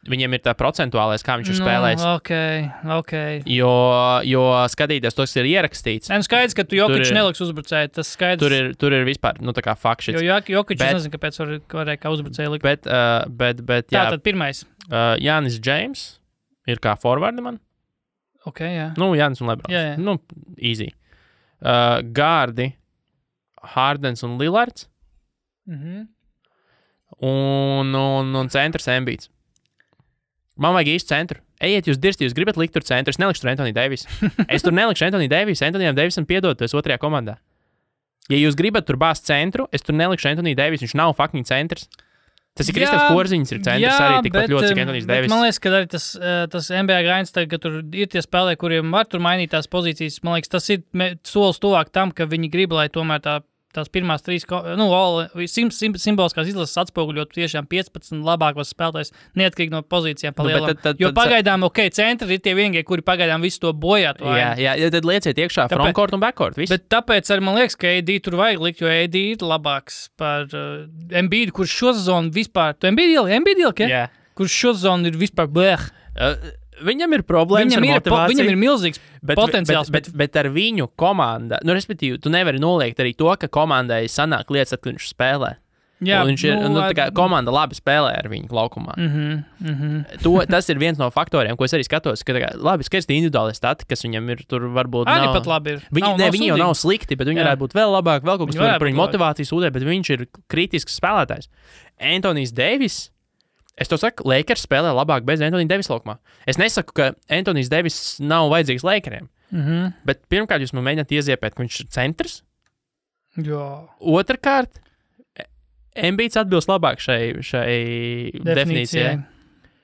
Viņiem ir tā procentuālais, kā viņš ir spēlējis. Okay. Jo skatīties to, kas ir ierakstīts. Skaidrs, ka tu Jokic neliks uzbrucēji. Tas skaidrs. Tur ir vispār, tā kā fakts. Jo Jokic, es nezinu, kāpēc varēja kā uzbrucēji likt. Bet jā. Tātad pirmais. Jānis James ir kā forwardi man. Jā. Jānis un LeBrons. Jā. Easy. Gārdi, Hardens un Lillards. Un centrs Embiids. Man vajag īstu centru. Ejiet, jūs dirsti, jūs gribat likt tur centru. Es nelikšu tur Anthony Davis. Es tur nelikšu Anthony Davis. Anthonyam Davisam piedod, tu esi otrajā komandā. Ja jūs gribat tur bāzt centru, es tur nelikšu Anthony Davis. Viņš nav fucking centrs. Tas ir Kristaps Porziņš, ir centrs arī tikpat ļoti, cik Anthony Davis. Man liekas, ka arī tas NBA gains, ka tur ir tie spēlēji, kuriem var tur mainīt tās pozīcijas. Man liekas, tas ir solis tuvāk tam, ka viņi grib, lai tomēr tās pirmās 3, simboliskās izlases atspoguļot tiešām 15 labākos spēlētājus, neatkarīgi no pozīcijām pa lielam. Jo pagaidām, centri ir tie vienīgie, kuri pagaidām visu to bojā. Jā, tad lieciet iekšā frontcourt un backcourt. Viss. Bet tāpēc arī man liekas, ka AD tur vajag likt, jo AD ir labāks par Embiidu, kurš šo sezonu vispār... Tu Embiid ilgi, ja? Kurš šo sezonu ir vispār blēh. Viņam ir problēmas ar motivāciju. Viņam ir milzīgs potenciāls. Bet ar viņu komandu, respektīvi, tu nevari noliegt arī to, ka komandai sanāk lietas, kad viņš spēlē. Jā, viņš ir, tā kā komanda labi spēlē ar viņu laukumā. Tas ir viens no faktoriem, ko es arī skatos, ka labi skaisti individuāli stati, kas viņam ir tur varbūt arī nav. Pat labi ir. Viņi jau nav slikti, bet viņi varētu būt vēl labāk, vēl kaut kas par viņu motivāciju sūdē, bet viņš ir kritisks spēlētājs. Anthony Davis. Es to saku, Lakers spēlē labāk bez Anthony Davis laukumā. Es nesaku, ka Anthony Davis nav vajadzīgs Lakeriem. Bet pirmkārt, jūs man mēģināt ieziepēt, ka viņš ir centrs. Jā. Otrkārt, Embiids atbilst labāk šai definīcijai.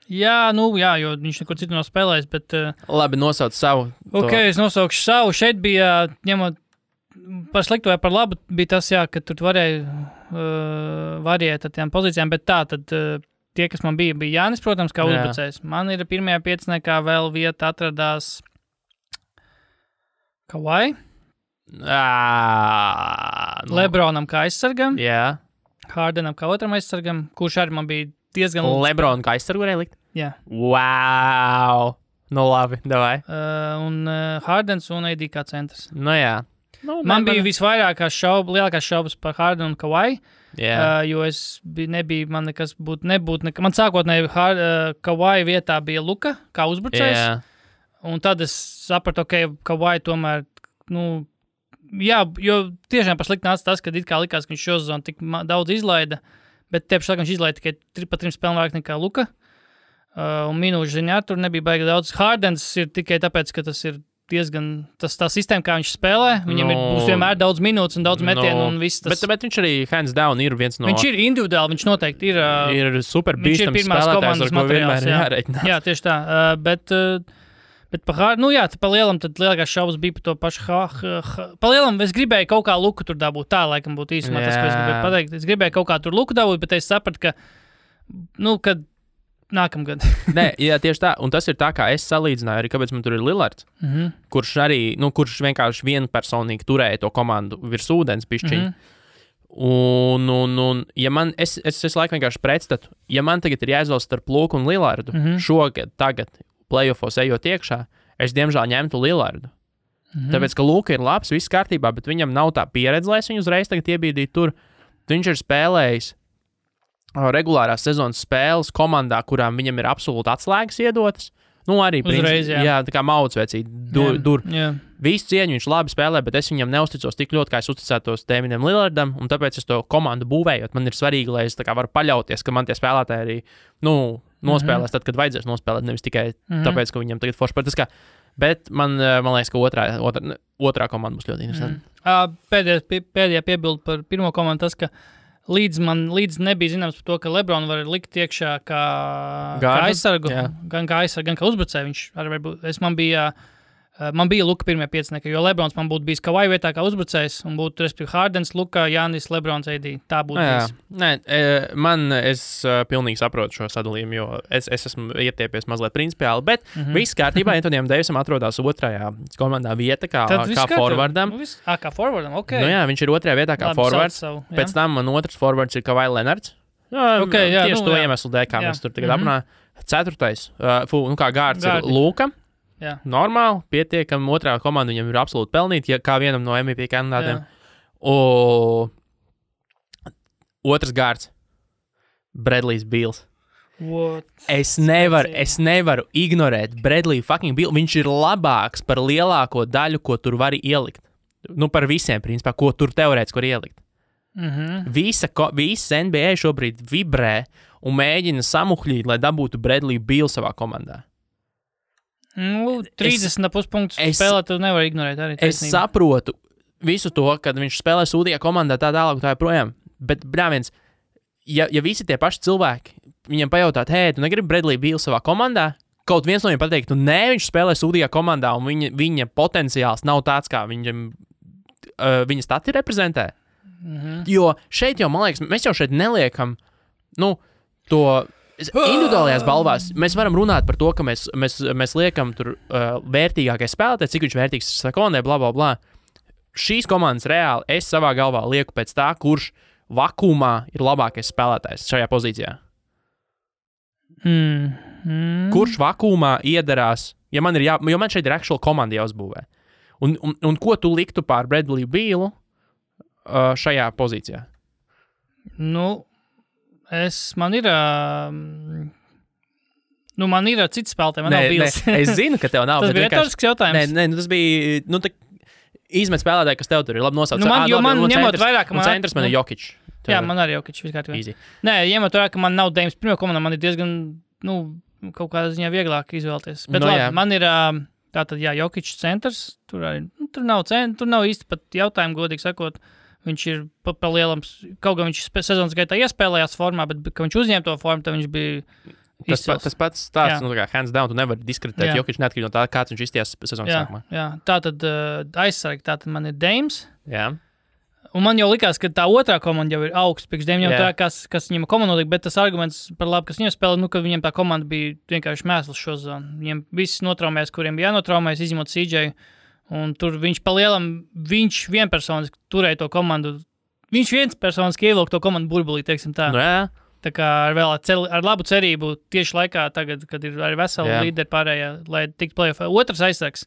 Jā, jo viņš neko citu nav spēlējis, bet... Labi, nosauc savu. Es nosaukšu savu. Šeit bija, ņemot par sliktu vai par labu, bija tas, ka tur varēja ar tām pozīcijām, bet tad... Tie, kas man bija Jānis, protams, kā uzbrucējs. Man ir pirmajā pieciniekā vēl vieta atradās Kawhi. Lebronam kā aizsargam. Jā. Hardenam kā otram aizsargam, kurš arī man bija diezgan... Lebron kā aizsargu varēja likt? Jā. Wow! Nu labi, davai. Un Hardens un AD kā centrs. Nu jā. Man bija lielākās šaubas par Hardenu un Kawhi. Yeah. Jo nebija man nekas nebūtu. Man sākotnēji Kawhi vietā bija Luka, kā uzbrucējs. Yeah. Un tad es sapratu, Kawhi tomēr, jo tiešām par slikti nāca tas, ka it kā likās, ka viņš šo sezonu tik daudz izlaida, bet tieši viņš izlaida tikai pa 3 spēlēm vairāk nekā Luka. Un minūšu ziņā tur nebija baigi daudz. Hardens ir tikai tāpēc, ka tas ir diezgan tā sistēma, kā viņš spēlē. Viņam būs vienmēr daudz minūtes un daudz metienu un viss tas. Bet viņš arī hands down ir viens no... Viņš ir individuāli, viņš noteikti ir... Ir super bīstams spēlētājs, ar ko vienmēr jārēķinās. Jā, tieši tā. Bet pa lielam tad lielākās šaubas bija par to pašu pa lielam es gribēju kaut kā Luku tur dabūt. Tā laikam būtu īsumā tas, ko es gribēju pateikt. Es gribēju kaut kā tur Luku dabūt, bet es sapratu, ka kad nākamgad. Nē, jā, tieši tā. Un tas ir tā, kā es salīdzināju arī, kāpēc man tur ir Lillards, kurš arī, kurš vienkārši vienpersonīgi turēja to komandu virs ūdens pišķiņu. Un ja man, es laikam vienkārši pretstatu, ja man tagad ir jāizvēlas starp Luku un Lillardu, tagad, playoffos ejot iekšā, es diemžēl ņemtu Lillardu. Tāpēc, ka Luka ir labs, viss kārtībā, bet viņam nav tā pieredze, lai es viņu uzreiz tagad iebīdītu tur. Viņš ir spēlējis regulārās sezonas spēles komandā, kurām viņam ir absolūti atslēgas iedotas. Arī uzreiz, jā, tā kā maucvecīgi. Visu cieņu viņš labi spēlē, bet es viņam neusticos tik ļoti, kā es uzticētos Damianam Lillardam, un tāpēc es to komandu būvējot. Man ir svarīgi, lai es tā kā varu paļauties, ka man tie spēlētāji arī, nospēlēs tad, kad vajadzēs nospēlēt, nevis tikai tāpēc, ka viņam tagad forši patiskā. Bet man liekas, ka otrā komanda būs ļoti interesanta. Pēdējā piebilde par pirmo komandu tas, ka līdz nebija zināms par to, ka Lebron var likt iekšā kā aizsargu, gan kā aizsargu, gan kā uzbrucēju. Viņš arī varbūt, man bija Luka pirmie piecinieki, jo Lebrons man būtu bijis Kawhi vietā kā uzbrucējs, un būtu, respektīvi, Hardens, Luka, Jānis, Lebrons, AD. Tā būtu bijis. Nē, es pilnīgi saprotu šo sadalījumu, jo es esmu ietiepies mazliet principiāli, bet viss kārtībā Anthonyam Davisam atrodas otrajā komandā vieta kā forwardam. Kā forwardam, ok. Viņš ir otrajā vietā kā forwards. Pēc tam man otrs forwards ir Kawhi Leonards. Tieši to iemeslu dēļ, kā mēs tur tagad aprunājam. Ceturtais, kā gārds ir Luka. Jā. Normāli, pietiekami, otrā komanda viņam ir absolūti pelnīta, kā vienam no MVP kandidātiem. Otrs gārds – Bradley's Beals. Es nevaru ignorēt Bradley fucking Beal. Viņš ir labāks par lielāko daļu, ko tur var ielikt. Par visiem, principā, ko tur teorētiski var ielikt. Visa NBA šobrīd vibrē un mēģina samuhļīt, lai dabūtu Bradley Beal savā komandā. 30,5 punktus spēlē, tu nevar ignorēt arī. Es saprotu visu to, kad viņš spēlē sūdīgā komandā tā tālāk, tā joprojām. Bet, brāviens, ja visi tie paši cilvēki viņam pajautāt, hei, tu negribi Bradley Beal savā komandā? Kaut viens no viņiem pateikt, nē, viņš spēlē sūdīgā komandā, un viņa potenciāls nav tāds, kā viņa stati reprezentē. Jo šeit jau, man liekas, mēs jau šeit neliekam, to individuālajās balvās. Mēs varam runāt par to, ka mēs liekam tur vērtīgākais spēlētājs, cik viņš vērtīgs sekundē, bla, bla, bla. Šīs komandas reāli es savā galvā lieku pēc tā, kurš vakumā ir labākais spēlētājs šajā pozīcijā. Kurš vakumā iedarās, jo man šeit ir actual komanda jāuzbūvē. Un ko tu liktu pār Bradley Bealu šajā pozīcijā? Man ir cits spēlētāji, man nav Beals. Es zinu, ka tev nav. Tas bija retorisks jautājums. Tas bija, izmet spēlētāji, kas tev tur ir labi nosauc. Ņemot vairāk, ka centrs man ir Jokic. Jā, man arī Jokic viskārtībā. Nē, ņemot vairāk, ka man nav Dames pirmā komanda, man ir diezgan, kaut kādā ziņā vieglāk izvēlēties. Bet labi, man ir tātad, Jokic centrs, tur nav īsti pat jautājumu, godīgi sakot. Viņš ir pa lielam, kaut gan viņš sezonas gaitā iespēlējās formā, bet, kad viņš uzņēma to formu, tad viņš bija izcils. Tas pats stāsts, kā hands down, tu nevari diskreditēt Jokic neatkarīgi no tā, kāds viņš izties sezonas sākumā. Jā, tātad aizsargi, tātad man ir Dames. Jā. Un man jau likās, ka tā otrā komanda jau ir augsts, priekš Dame jau tā, kas viņam komanda notika, bet tas arguments par labu, kas viņam spēlē, ka viņiem tā komanda bija vienkārši mēsls šo zonu. Viņiem viss notraumēs, kuriem bija jānotraumēs, izņemot CJ. Un tur viņš palielam, viņš vienpersoniski turēja to komandu, viņš vienspersoniski ievilka to komandu burbulī, teiksim tā. Tā kā ar labu cerību tieši laikā tagad, kad ir arī veseli līderi pārējā, lai tiktu playoffā. Otrs aizsargs.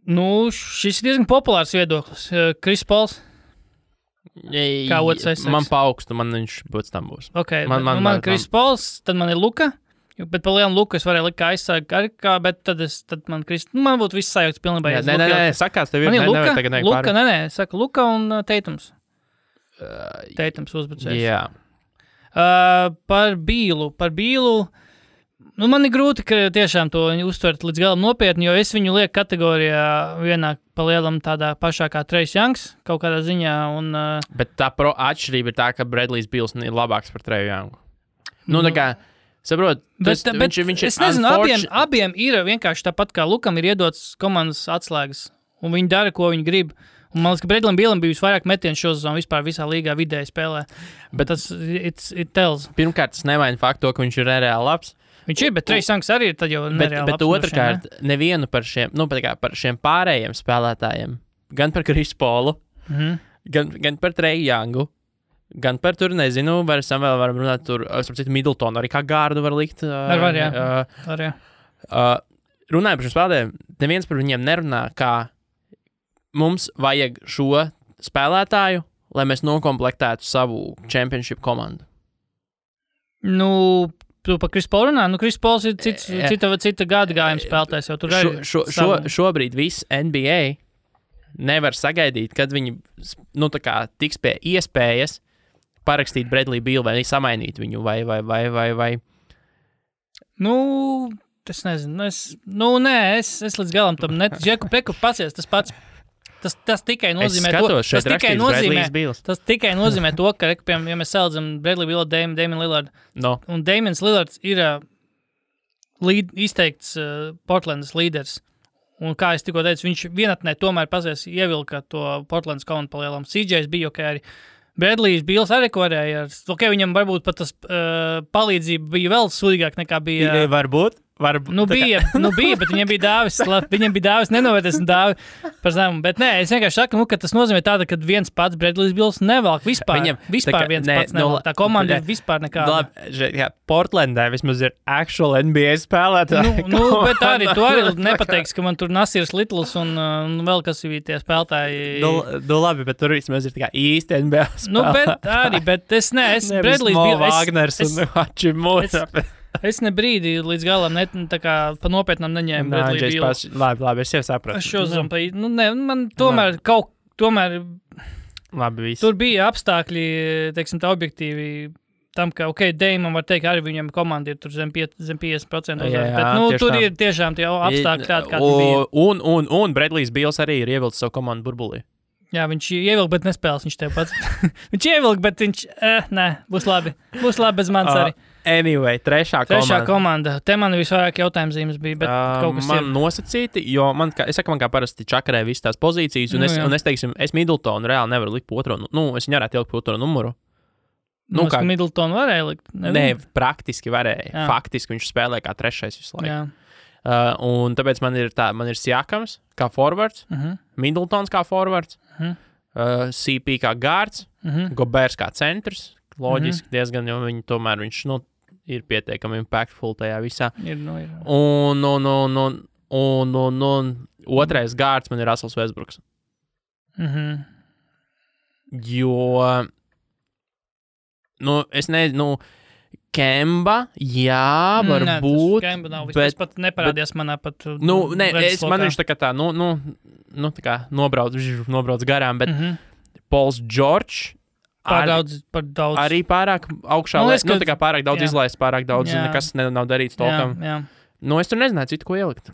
Šis ir diezgan populārs viedoklis. Chris Pauls. Kā otrs aizsargs. Man paaugstu, man viņš būtu tam būs. Ok, man Chris Pauls, tad man ir Luka. Bet par lielu Luku es varēju likt kā aizsargu, bet tad man būtu viss sajūts pilnībā. Nē, sakās, tev ir Saka Luka un Teitums. Teitums uzbrucējs. Jā. Par Bealu. Man ir grūti, ka tiešām to uztvert līdz galam nopietni, jo es viņu lieku kategorijā vienā pa lielam tādā pašā kā Trace Youngs, kaut kādā ziņā. Bet tā atšķirība ir tā, ka Bradleys Beals ir labāks par Trace Youngu. Tā kā saprot, viņš es nezinu, abiem ir vienkārši tāpat kā Lukam ir iedots komandas atslēgas, un viņi dara, ko viņi grib. Un man liekas, ka Bradleyam Bealam bija visvairāk metienu šo sezonu vispār visā līgā vidēji spēlē. Bet tas it tells. Pirmkārt, tas nevaina faktu, ka viņš ir nereāli labs. Viņš ir, bet Trace Youngs arī ir tad jau nereāli labs. Bet otrkārt, nevienu par šiem pārējiem spēlētājiem, gan par Chris Paulu, gan par Trace Youngu, gan par tur, nezinu, vēl varam runāt tur, citu Middletonu, arī kā gārdu var likt. Runājot par šiem spēlētājiem, neviens par viņiem nerunā, kā mums vajag šo spēlētāju, lai mēs nokomplektētu savu championship komandu. Tu par Chris Paulu runā? Chris Pauls ir cita gada gājuma spēlētājs, jau tur arī šobrīd viss NBA nevar sagaidīt, kad viņi tiks pie iespējas parakstīt Bradley Beal vai samainīt viņu, vai. Es nezinu. Es līdz galam tam neticu. Džeku Preku pacies, tas pats. Tas tikai nozīmē Tas tikai nozīmē to, ka, piemēram, ja mēs salīdzinām Bradley Beal, Damian Lillard. Un Damians Lillards ir izteikts Portlandas līderis. Un kā es tikko teicu, viņš vienatnē tomēr pazies ievilka to Portlandas komandu palielam. CJs bija arī. Bradleys Beals arī varēja. Viņam varbūt pat tas palīdzība bija vēl sūdīgāk nekā bija. Varbūt. Bija, bet viņam bija dāvis nenovērtēs un dāvi par zemu. Bet nē, es vienkārši saku, ka tas nozīmē tāda, ka viens pats Bradleys Beals nevelk vispār. Vispār viens pats nevelk. Tā komanda ir vispār nekāda. Portlandē vismaz ir actual NBA spēlētāji. Bet arī tu arī nepateiksi, ka man tur Nasirs Littles un vēl kas ir tie spēlētāji. Labi, bet tur vismaz ir tā kā īsti NBA spēlētāji. Bet es Bradleys Beals. Wagners un Hachimura. Es ne brīdi līdz galam pa nopietnam neņēmu Bradley Beal. Labi, es jau sapratu. Es šo zinu, man tomēr Labi, viss. Tur bija apstākļi, teiksim tā objektīvi, tam, ka, Dejmam var teikt, arī viņam komanda ir tur zem 50% uzvaras, Jā, bet, tur tā. ir tiešām tie apstākļi tādi, kādi bija. Un Bradlijs Bīls arī ir ievilcis savu komandu burbulī. Jā, viņš ievilka, bet nespēlēs viņš tev pats. Viņš ievilka, bet viņš, nē, būs labi bez manis arī. Anyway, trešā komanda. Te man visvairāk jautājums zīmes bija, bet kaut kas man nosacīti, jo man kā parasti čakarē visas tās pozīcijas, un es teiksim, es Middletonu reāli nevaru likt otro, es viņu varētu ielikt otro numuru. Kā Middletonu varēja likt? Nē, praktiski varēja. Jā. Faktiski viņš spēlē kā trešais visu laiku. Un tāpēc man ir Siakams kā forwards, Middletons kā forwards, CP kā guards, Gobers kā centrs. Loģiski diezgan, jo viņš ir pietiekami impactful tajā visā. Ir. Un otrais guards man ir Russells Westbrooks. Jo, es nezinu, Kemba, jā, varbūt. Kemba nav, bet pat neparādījās manā pat. Man viņš tā kā nobrauc garām, bet Pauls George par daudz. Arī pārāk augšā, tā kā pārāk daudz izlaist, pārāk daudz, nekas nav darīts tolkam. Jā. Es tur nezināju citu, ko ielikt.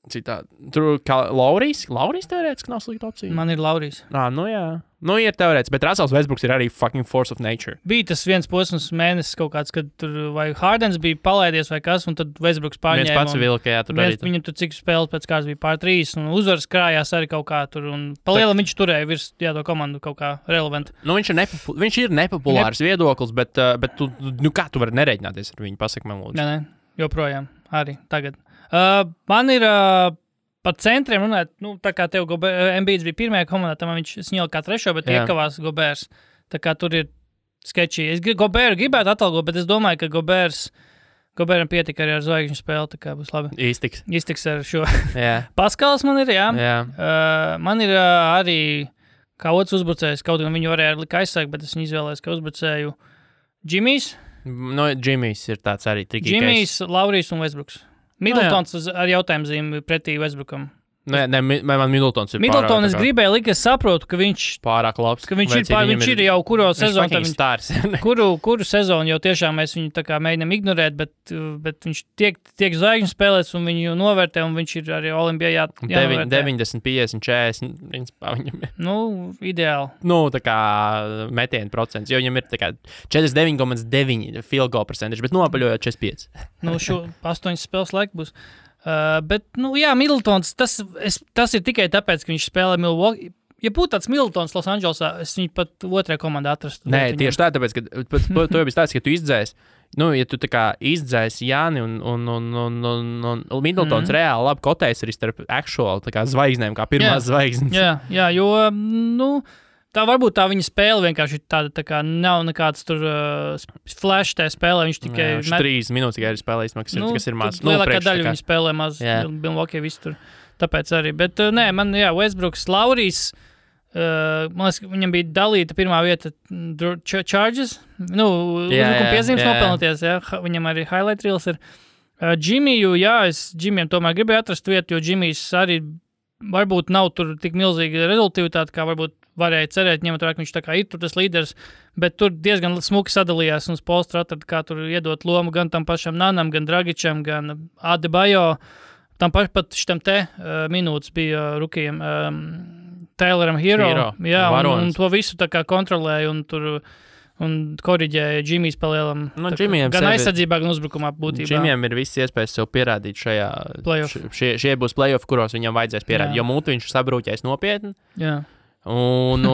Tur kā Laurijs teorētiski nav slikta opcija. Man ir Laurijs. Jā. Ir teorētiski, bet Russells Westbrooks ir arī fucking force of nature. Bija tas viens posms mēnesis kaut kāds, kad tur vai Hardens bija palaidies vai kas, un tad Westbrooks pārņēma. Viens pats vilka, jā, tur arī. Viņam tur cik spēles pēc kāds bija pār 3, un uzvaras krājās arī kaut kā tur, un palielam viņš turēja virs to komandu kaut kā relevant. Viņš ir nepopulārs viedoklis, bet tu, kā tu vari nerēķināties ar viņu, pasaka man lūdzu. Nē, joprojām, arī tagad. Man ir par centriem runāt, tā kā tev Embiids bija pirmajā komandā, tam viņš sņēla kā trešo, bet iekavās Gobers. Tā kā tur ir sketčī. Es Goberu gribētu atalgot, bet es domāju, ka Goberam pietika arī ar zvaigžņu spēli, tā kā būs labi. Iztiks ar šo. Paskals man ir, jā. Man ir arī kā otrs uzbrucējs, kaut gan viņu varēja likt aizsākt, bet es viņu izvēlējos kā uzbrucēju Džimijs. Džimijs ir tāds arī trikīgais. Džimijs, Laurijs un Westbrooks. Middletons ar jautājumu zīmi pretī Westbrookam. Man Middletons ir Middleton es gribēju likt, es saprotu, ka viņš pārāk labs. Ka viņš ir jau kuro sezonu. Kuru sezonu jau tiešām mēs viņu tā kā mēģinām ignorēt, bet viņš tiek zvaigžņu spēlēts un viņu novērtē, un viņš ir arī Olimpijā jānovērtē. 90, 50, 40, principā viņam ir. Ideāli. Tā kā metienu procents, jo viņam ir tā kā 49,9 field goal percentage, bet nopaļojot 45. Šo 8 spēles laiku būs. Bet, Middletons, tas ir tikai tāpēc, ka viņš spēlē Milwaukee. Ja būtu tāds Middletons Los Andželosā, es viņu pat otrajā komandā atrastu. Nē, tieši tā, tāpēc, ka to jau bija tāds, ka tu izdzēsi. Ja tu tā kā izdzēsi Jāni un Middletons reāli labi kotēs arī starp actual tā kā zvaigznēm, kā pirmās zvaigznes. Jā, jo, tā varbūt tā viņa spēle vienkārši tāda tā kā nav nekāds tur flash tajā spēlē, viņš tikai... Viņš 3 minūtes tikai ir spēlējis, kas ir maz. Lielākā daļa viņa spēlē maz, Milwaukee visu tur, tāpēc arī. Bet man, Westbrooks, Laurijs, man liekas, viņam bija dalīta pirmā vieta Charges, uzbrukuma piezīmes nopelnoties, viņam arī highlight reels ir. Džimiju, es Džimijam tomēr gribēju atrast vietu, jo Džimijs arī varbūt nav tur tik milzīga rezultātivitāte, kā varbūt varēja cerēt, ņemot vērā, ka viņš tā kā ir tur tas līderis, bet tur diezgan smuki sadalījās un Spolstra atrada, kā tur iedot lomu gan tam pašam Nanam, gan Dragičam, gan Adebayo. Tam pat šitam minūtes bija rukijam Tayloram Hero. Jā, un to visu tā kā kontrolēja un tur un koriģēja Džimijs palielam. Gan aizsardzībā, gan uzbrukumā būtībā. Džimijam ir viss iespējas sev pierādīt šajā šie būs play-off, kuros viņam vajadzēs pierādīt, jo mūtu viņš sabrūķēs nopietni. Jā. Un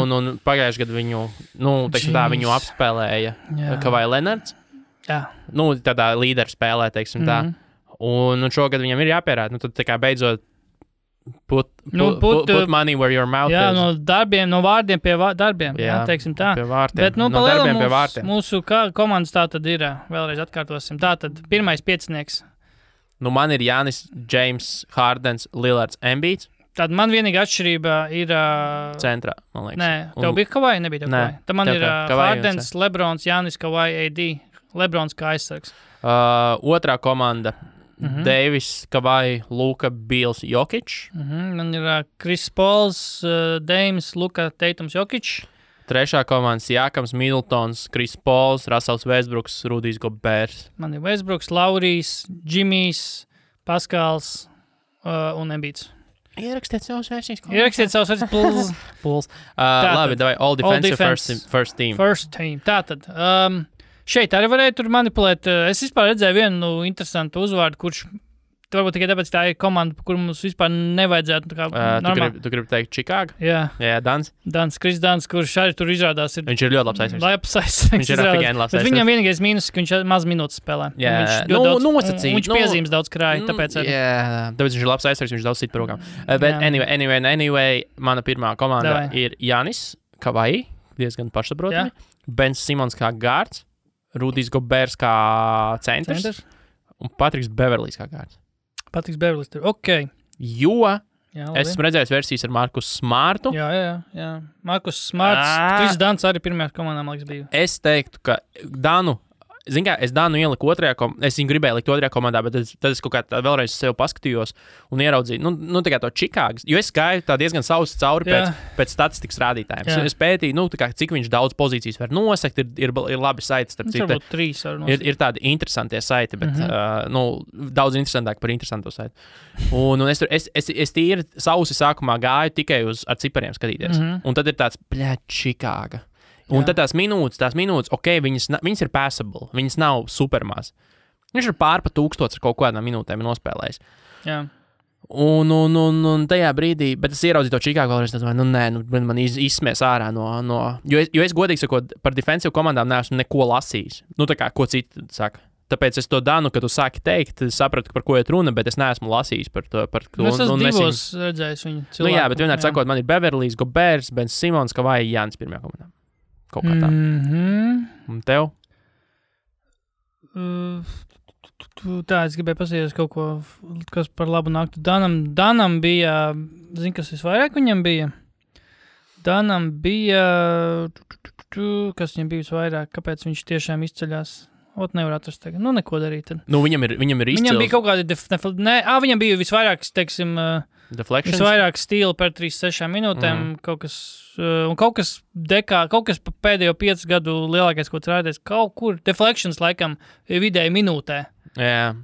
pagājuši gadu viņu, viņu apspēlēja Kawhi Leonards. Jā. Tādā līderu spēlē, teiksim tā. Un šogad viņam ir jāpierāda. Tad tā kā beidzot put money where your mouth is. No vārdiem pie darbiem, teiksim tā. Pie vārtiem. Bet, no darbiem pie vārtiem. Mūsu komandas tā tad ir, vēlreiz atkārtosim, tā tad pirmais piecinieks. Man ir Jānis, James, Hardens, Lillards, Embiids. Tad man vienīgā atšķirība ir... Centrā, man liekas. Nē, tev bija Kawhi, nebija tev Kawhi. Tad man ir Hardens, Lebrons, Jānis, Kawhi, AD. Lebrons kā aizsargs. Otrā komanda. Davis, Kawhi, Luka, Bils, Jokic. Man ir Chris Pauls, Dames, Luka, Teitums, Jokic. Trešā komanda Siakams, Middletons, Kris Pols, Russells Westbrooks, Rudijs Gobers. Man ir Westbrooks, Laurijs, Džimijs, Paskals un Embiids. Ierakstiet savus versijas. Ierakstiet savus versijas. Puls. Labi, davai, all defensive first team. First team. Tātad. Šeit arī varēja tur manipulēt. Es vispār redzēju vienu interesantu uzvārdu, kurš varbūt tikai tāpēc tā ir komanda, kur mums vispār nevajadzētu. Tu gribi teikt Chicago? Jā, Dans. Kris Dans, kurš arī tur izrādās. Viņš ir ļoti labs aizsargs. Viņš ir afigēni labs aizsargs. Viņam vienīgais mīnus, ka viņš maz minūtes spēlē. Viņš piezīmes daudz krāja, tāpēc arī. Tāpēc viņš ir labs aizsargs, viņš daudz sit par rokām. Bet anyway, mana pirmā komanda ir Janis Kavai, diezgan pašsaprotami. Bens Simons kā gārds, Rudijs Gobers kā centrs un Patriks Beverlijs kā gārds. Patriks Beverlijs tur. Ok. Jo es esmu redzējis versijas ar Markus Smartu. Jā. Markus Smarts, Kris Dans arī pirmajā komandā, man liekas, bija. Es teiktu, ka Danu, es Danu ieliku otrajā komandā, es viņu gribēju likt otrajā komandā, bet tad es kaut kā vēlreiz sev paskatījos un ieraudzīju, tā kā to Čikāgas, jo es gāju tā diezgan sausi cauri pēc statistikas rādītājiem. Es pētīju, cik viņš daudz pozīcijas var nosekt, ir labi saiti, starp citu. Varbūt 3 var nosekt. Ir tādi interesantie saiti, bet daudz interesantāk par interesanto saiti. Un es tīri sausi sākumā gāju tikai ar cipariem skatīties. Un tad ir tāds, Čikāga. Un tad tās minūtes, ok, viņas ir passable, viņas nav supermās. Viņš ir pārpa 1000 ar kaut kādām minūtēm nospēlējis. Jā. Un tajā brīdī, bet es ieraudzīju to Čikāgu vēlreiz, man izsmies ārā no jo es godīgi sakot, par defensive komandām neesmu neko lasījis. Tā kā, ko citi saka. Tāpēc es to Danu, kad tu sāki teikt, sapratu, par ko iet runa, bet es neesmu lasījis par to. Es esmu divos redzējis viņu cilvēku. Jā, bet vienmēr sakot, man ir Beverlijs, Gobers, Bens Simons, Kavai, Jānis pirmajā komandā. Kaut kā tā. Un tev? Tā, es gribēju pasīties kaut ko, kas par labu nāktu. Danam bija, zini, kas visvairāk viņam bija? Danam bija, kas viņam bija visvairāk, kāpēc viņš tiešām izceļās? Nevar atrast tagad. Neko darīt. Tad. Viņam ir izcils. Viņam bija kaut kādi viņam bija visvairāk, teiksim, visvairāk stīli par 3-6 minūtēm, kaut kas pēdējo 5 gadu lielākais, ko rādēs, kaut kur deflections laikam vidēji minūtē. Jā.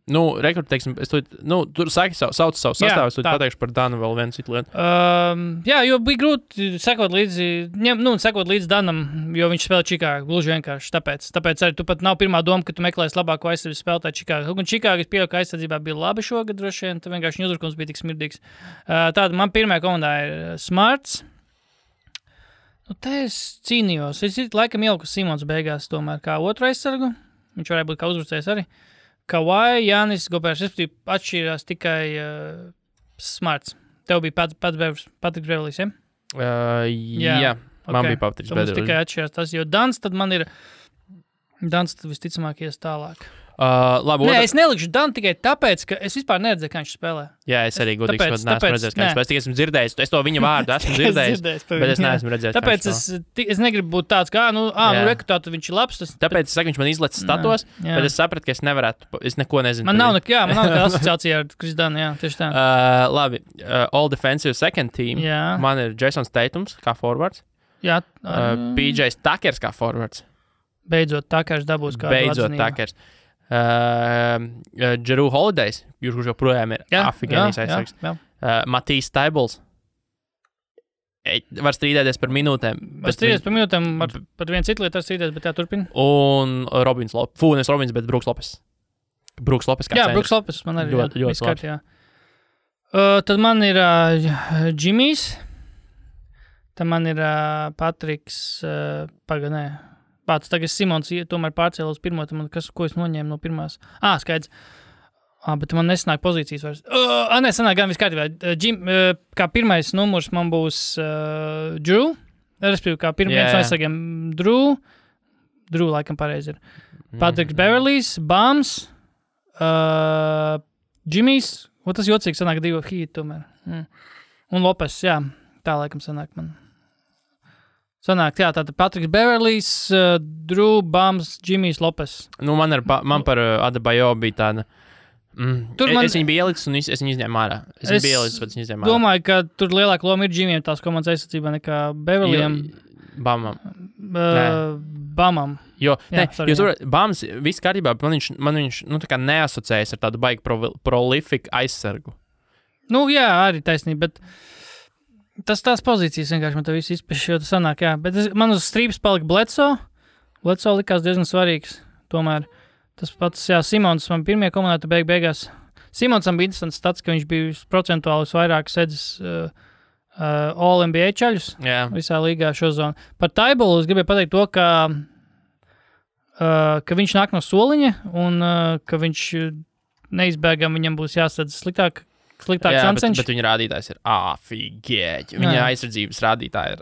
Rekrut, teiksim, tur sauc savu sastāvu, es pateikšu par Danu vēl vienu citu lietu. Jā, jo bija grūti sekot līdzi Danam, jo viņš spēlē Čikāgu, gluži vienkārši tāpēc arī tu pat nav pirmā doma, ka tu meklēsi labāko aizsardzību spēlētāju Čikāgu. Un Čikāga, es pieļauju, ka aizsardzībā bija labi šogad droši vien, tad vienkārši viņa uzbrukums bija tik smirdīgs. Tāda man pirmajā komandā ir Smarts. Te es cīnījos. Es laikam ieliku Simons beigās tomēr kā otru aizsargu. Viņš varēja būt kā uzbrucējs arī. Kawhi, Jānis, Gobers, respektīvi atšķīrās tikai Smarts. Tev bija Patriks Beverlijs, ja? Jā, man bija Patriks Beverlijs. Mums tikai atšķīrās tas, jo Dans tad visticamāk ies tālāk. Labi, es nelikšu Danu tikai tāpēc, ka es vispār neredzēju, kā viņš spēlē. Jā, es arī godīgi sakot, neesmu redzējis, kā viņš spēlē. Es tikai esmu dzirdējis, es to viņa vārdu esmu dzirdējis, bet es neesmu redzējis. Tāpēc es negribu būt tāds, kā, rekrutāt, viņš ir labs. Tāpēc es saku, viņš man izlecis statos, bet es sapratu, ka es nevarētu, es neko nezinu. Man nav nekāda asociācija ar Kris Danu, jā, tieši tā. Labi, all defensive second team. Man ir Jasons Tatums kā forwards. Jā. PJs Takers kā forwards. Beidzot Takers dabūs kādu atzinību. Jeru Holidays, kurš joprojām ir afigēnijas aizsargs. Matīs Taibls. Var strīdēties par minūtēm. Var strīdēties par minūtēm, par vienu citu lietu var strīdēties, bet turpina. Un Robins Lopes. Nevis Robins, bet Brooks Lopes. Brooks Lopes kā centrs. Jā, Brooks Lopes man arī ļoti labs. Tad man ir Džimijs. Tad man ir Patriks Paganē. Tagad Simons tomēr pārcēla uz pirmo, ko es noņēmu no pirmās. Skaidrs. Bet man nesanāk pozīcijas vairs. Sanāk gan viss kārtībā. Kā pirmais numurs man būs Drew. Respektīvi, kā pirmais aizsargiem Drew. Drew laikam pareizi ir. Patriks Beverlijs, Bams, Džimijs. Tas jocīgi sanāk 2 hīti tomēr. Un Lopes, jā. Tā laikam sanāk man. Sanāk, jā, tātad Patriks Beverlijs, Drew, Bams, Džimijs, Lopes. Man par Adebayo bija tāda. Es viņu biju ielicis un es viņu izņēmu ārā. Es viņu biju ielicis, bet viņu izņēmu ārā. Domāju, ka tur lielāka loma ir Džimijam tās komandas aizsardzībā nekā Beverlijam. Bamam. Jo Bams viss kārtībā, man viņš tā kā neasociējas ar tādu baigi prolifiku aizsargu. Nu, jā, arī taisnība, bet tās pozīcijas vienkārši man te visu izpešķi, jo tas sanāk, jā. Bet man uz strīpas palika Bledsoe. Bledsoe likās diezgan svarīgs, tomēr. Tas pats, jā, Simons man pirmie komandā beigās. Simonsam bija interesants stats, ka viņš bija procentuāli vairāk sedzis All-NBA čaļus visā līgā šo zonu. Par Taibolu es gribēju pateikt to, ka viņš nāk no soliņa un ka viņš neizbēgam viņam būs jāsadz sliktāks Ancenš. Bet viņa rādītājs ir afigēķi. Viņa aizsardzības rādītāji ir,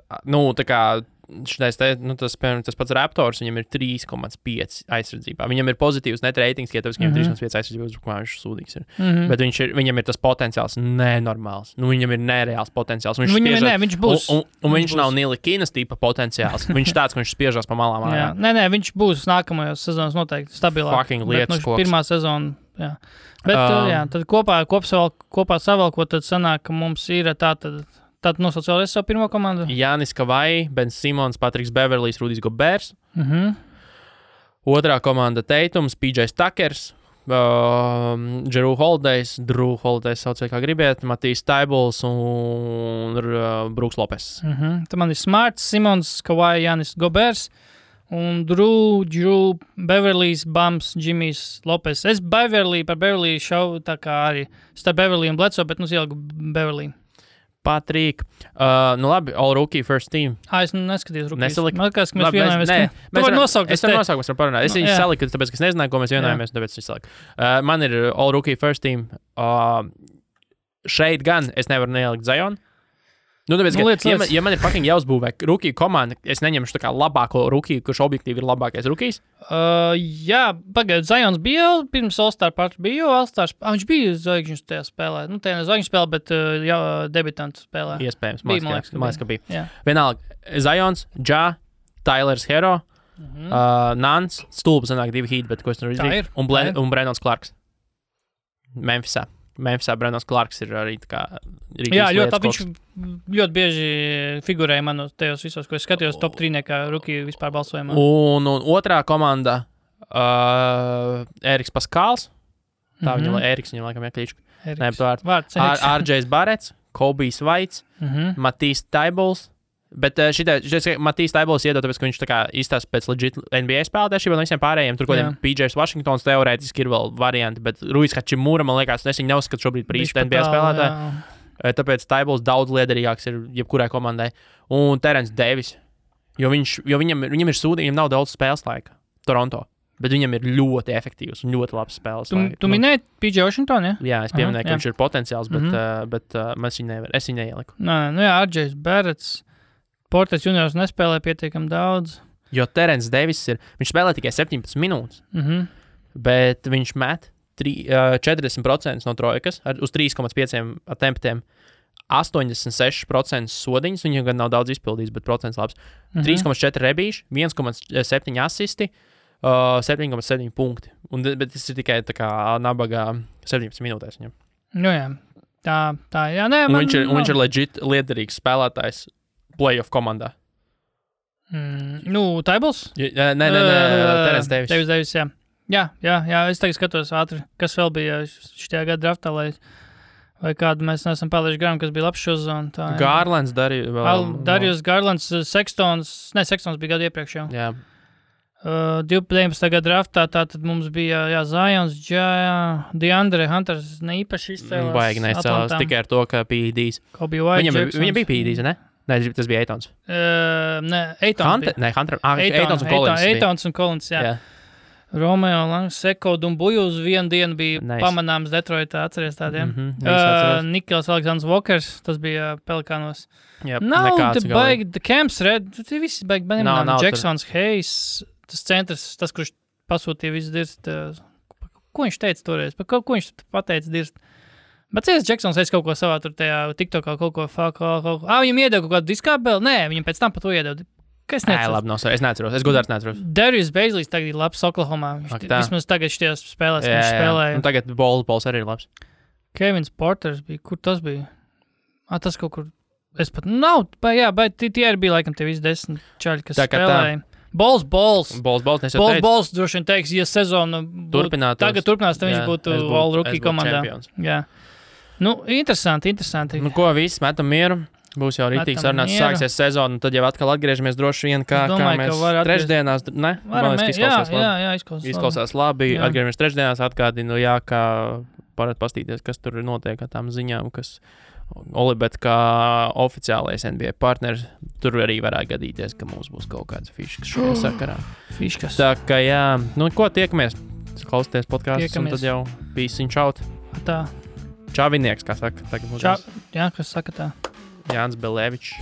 tā kā tas pats Raptors, viņam ir 3,5 aizsardzībā. Viņam ir pozitīvs net ratings, ja tāpēc viņam ir 3,5 aizsardzības, kā viņš sūdīgs ir. Bet viņam ir tas potenciāls nenormāls. Viņam ir nereāls potenciāls. Viņš būs. Un viņš nav Nilikinas tipa potenciāls. Viņš tāds, ka viņš spiežās pa malām. Nē, viņš būs nākamajos sezonas noteikti stabilāk. Fucking lietas koks. Pirmā sezona, jā. Bet, tad kopā savalkot, tad sanāk, ka mums ir Tātad nosauc vēlreiz savu pirmo komandu. Jānis Kavai, Ben Simons, Patriks Beverlijs, Rudijs Gobers. Otrā komanda Teitums, PJ Tuckers, Drew Holidays sauciet kā gribiet, Matīs Taibuls un Brooks Lopes. Tad man ir Smarts, Simons, Kavai, Jānis Gobers un Drew Beverlijs, Bams, Jimmys Lopes. Es par Beverliju šau tā kā arī starp Beverliju un Bledsoe, bet ieliku Beverliju. Patrīk. Labi, all rookie first team. Es neskatījos rookies. Nesaliku. Man liekas, ka mēs vienojamies. Tu vari nosaukt. Es varu nosaukt, mēs varam parunāt. Es viņu saliku, tāpēc, ka es nezināju, ko mēs vienojamies, tāpēc es saliku. Man ir all rookie first team. Šeit gan es nevaru neielikt Zionu. Tāpēc, ja man ir fucking jāuzbūvē rookie komanda, es neņemšu tā kā labāko rookie, kurš objektīvi ir labākais rookies. Jā, pagaid, Zions bija pirms All-Star party, bija All-Stars. Viņš bija zvaigžņu tajā spēlē. Tajā ne zvaigžņu spēlē, bet debitantu spēlē. Iespējams, man liekas, ka bija. Vienalga, Zions, Ja, Tylers Hero, Nans, stulpa sanāk 2 heat, bet ko es tur izdarīju. Un Brandons Clarks. Memphisā Brandons Clarks ir arī tā kā rītīs lietas. Viņš ļoti bieži figurēja manos tajos visos, ko es skatījos top 3 kā rookie vispār balsojumā. Un otrā komanda Eriks Paskāls. Tā viņam laikam jāklīču. RJs Barets, Kobijs Vaits, Matīs Taibuls. Bet Matīs Taibuls iedod, tāpēc, ka viņš tā kā izstāsta pēc legit NBA spēlētājiem no visiem pārējiem. Tur kodiem PJs Washingtons teorētiski ir vēl varianti, bet Ruijs Hačimura, man liekas, es viņu neuzskatu šobrīd par īstu NBA spēlētāju. Tāpēc Taibuls daudz liederīgāks ir jebkurai komandai. Un Terence Davis, jo viņam ir sūdi, viņam nav daudz spēles laika Toronto, bet viņam ir ļoti efektīvs un ļoti labs spēles laika. Tu minēji PJ Washington, ja? Jā, es pieminēju, ka viņš ir potenciāls, bet es viņu neieliku. RJs Barets. Portes juniors nespēlē pietiekami daudz. Jo Terence Davis viņš spēlē tikai 17 minūtes, bet viņš met 40% no trojkas uz 3,5 attemptiem, 86% sodiņas, viņam gan nav daudz izpildījis, bet procents labs. 3,4 rebīši, 1,7 asisti, 7,7 punkti. Bet tas ir tikai tā kā nabagā 17 minūtēs viņam. Jā. Tā, jā. Nē, viņš ir legit liederīgs spēlētājs playoff komandā. Taibuls? Nē, Terence Davis. Davis, jā. Jā, es tagad skatos ātri, kas vēl bija šajā gada draftā, vai kādu mēs neesam palaiši garām, kas bija labs šo zonu. Garlands Darius Garlands, Sextons bija gadu iepriekš jau. Jā. 12. gada draftā, tātad mums bija Zions, DeAndre Hunters neīpaši izcēlās. Baigi neizcēlās, tikai ar to, ka PEDs. Viņam bija PEDs, ne? Nē, tas bija Eitons. Eitons Eitons un Collins, jā. Romeo Langs, Seko Dumbuju uz vienu dienu bija pamanāms Detroitā, atceries tādiem. Nikels Alexandrs Walkers, tas bija Pelikānos. Baigi, Camps Red, visi baigi, Jacksons, Hayes, tas centrs, tas, kurš pasūtīja visu dirst. Ko viņš teica toreiz? Ko viņš pateica dirst? Bet Jacksons kaut ko savā tur tajā TikTokā kaut ko. Viņam iedeva kaut kādu diskābeli? Nē, viņam pēc tam par to iedeva. Kas necēs? Nē, labi, es neatceros. Es godārs neatceros. Darius Bazleys tagad ir labs Oklahomā. Vismaz tagad šajās spēlēs viņš spēlēja. Un tagad Bols arī ir labs. Kevins Porters bija. Kur tas bija? Tas kaut kur Es pat nav, bet tie arī bija laikam tie visi 10 čaļi, kas spēlēja. Bols droši vien teiks, ja sezonu tagad turpinās, tad viņš būtu All-Rookie komandā. Jā. Nu, interesanti. Nu, ko, viss, metam mieru. Būs jau rītīgs sarunāts, sāksies sezonu, un tad jau atkal atgriežamies droši vien, kā mēs trešdienās, ne? Izklausās labi, atgriežamies trešdienās, atgādinu, kā varat pastīties, kas tur notiek ar tām ziņām, kas Olibet kā oficiālais NBA partners, tur arī varētu gadīties, ka mums būs kaut kāds fiškas šajā sakarā. Fiškas. Tā kā nu ko, tiekamies, klausieties podkāstus, un tad jau pīsiņš out. Tā. Čavinieks, kā saka. Jā, kas saka tā. Jānis Belevičs.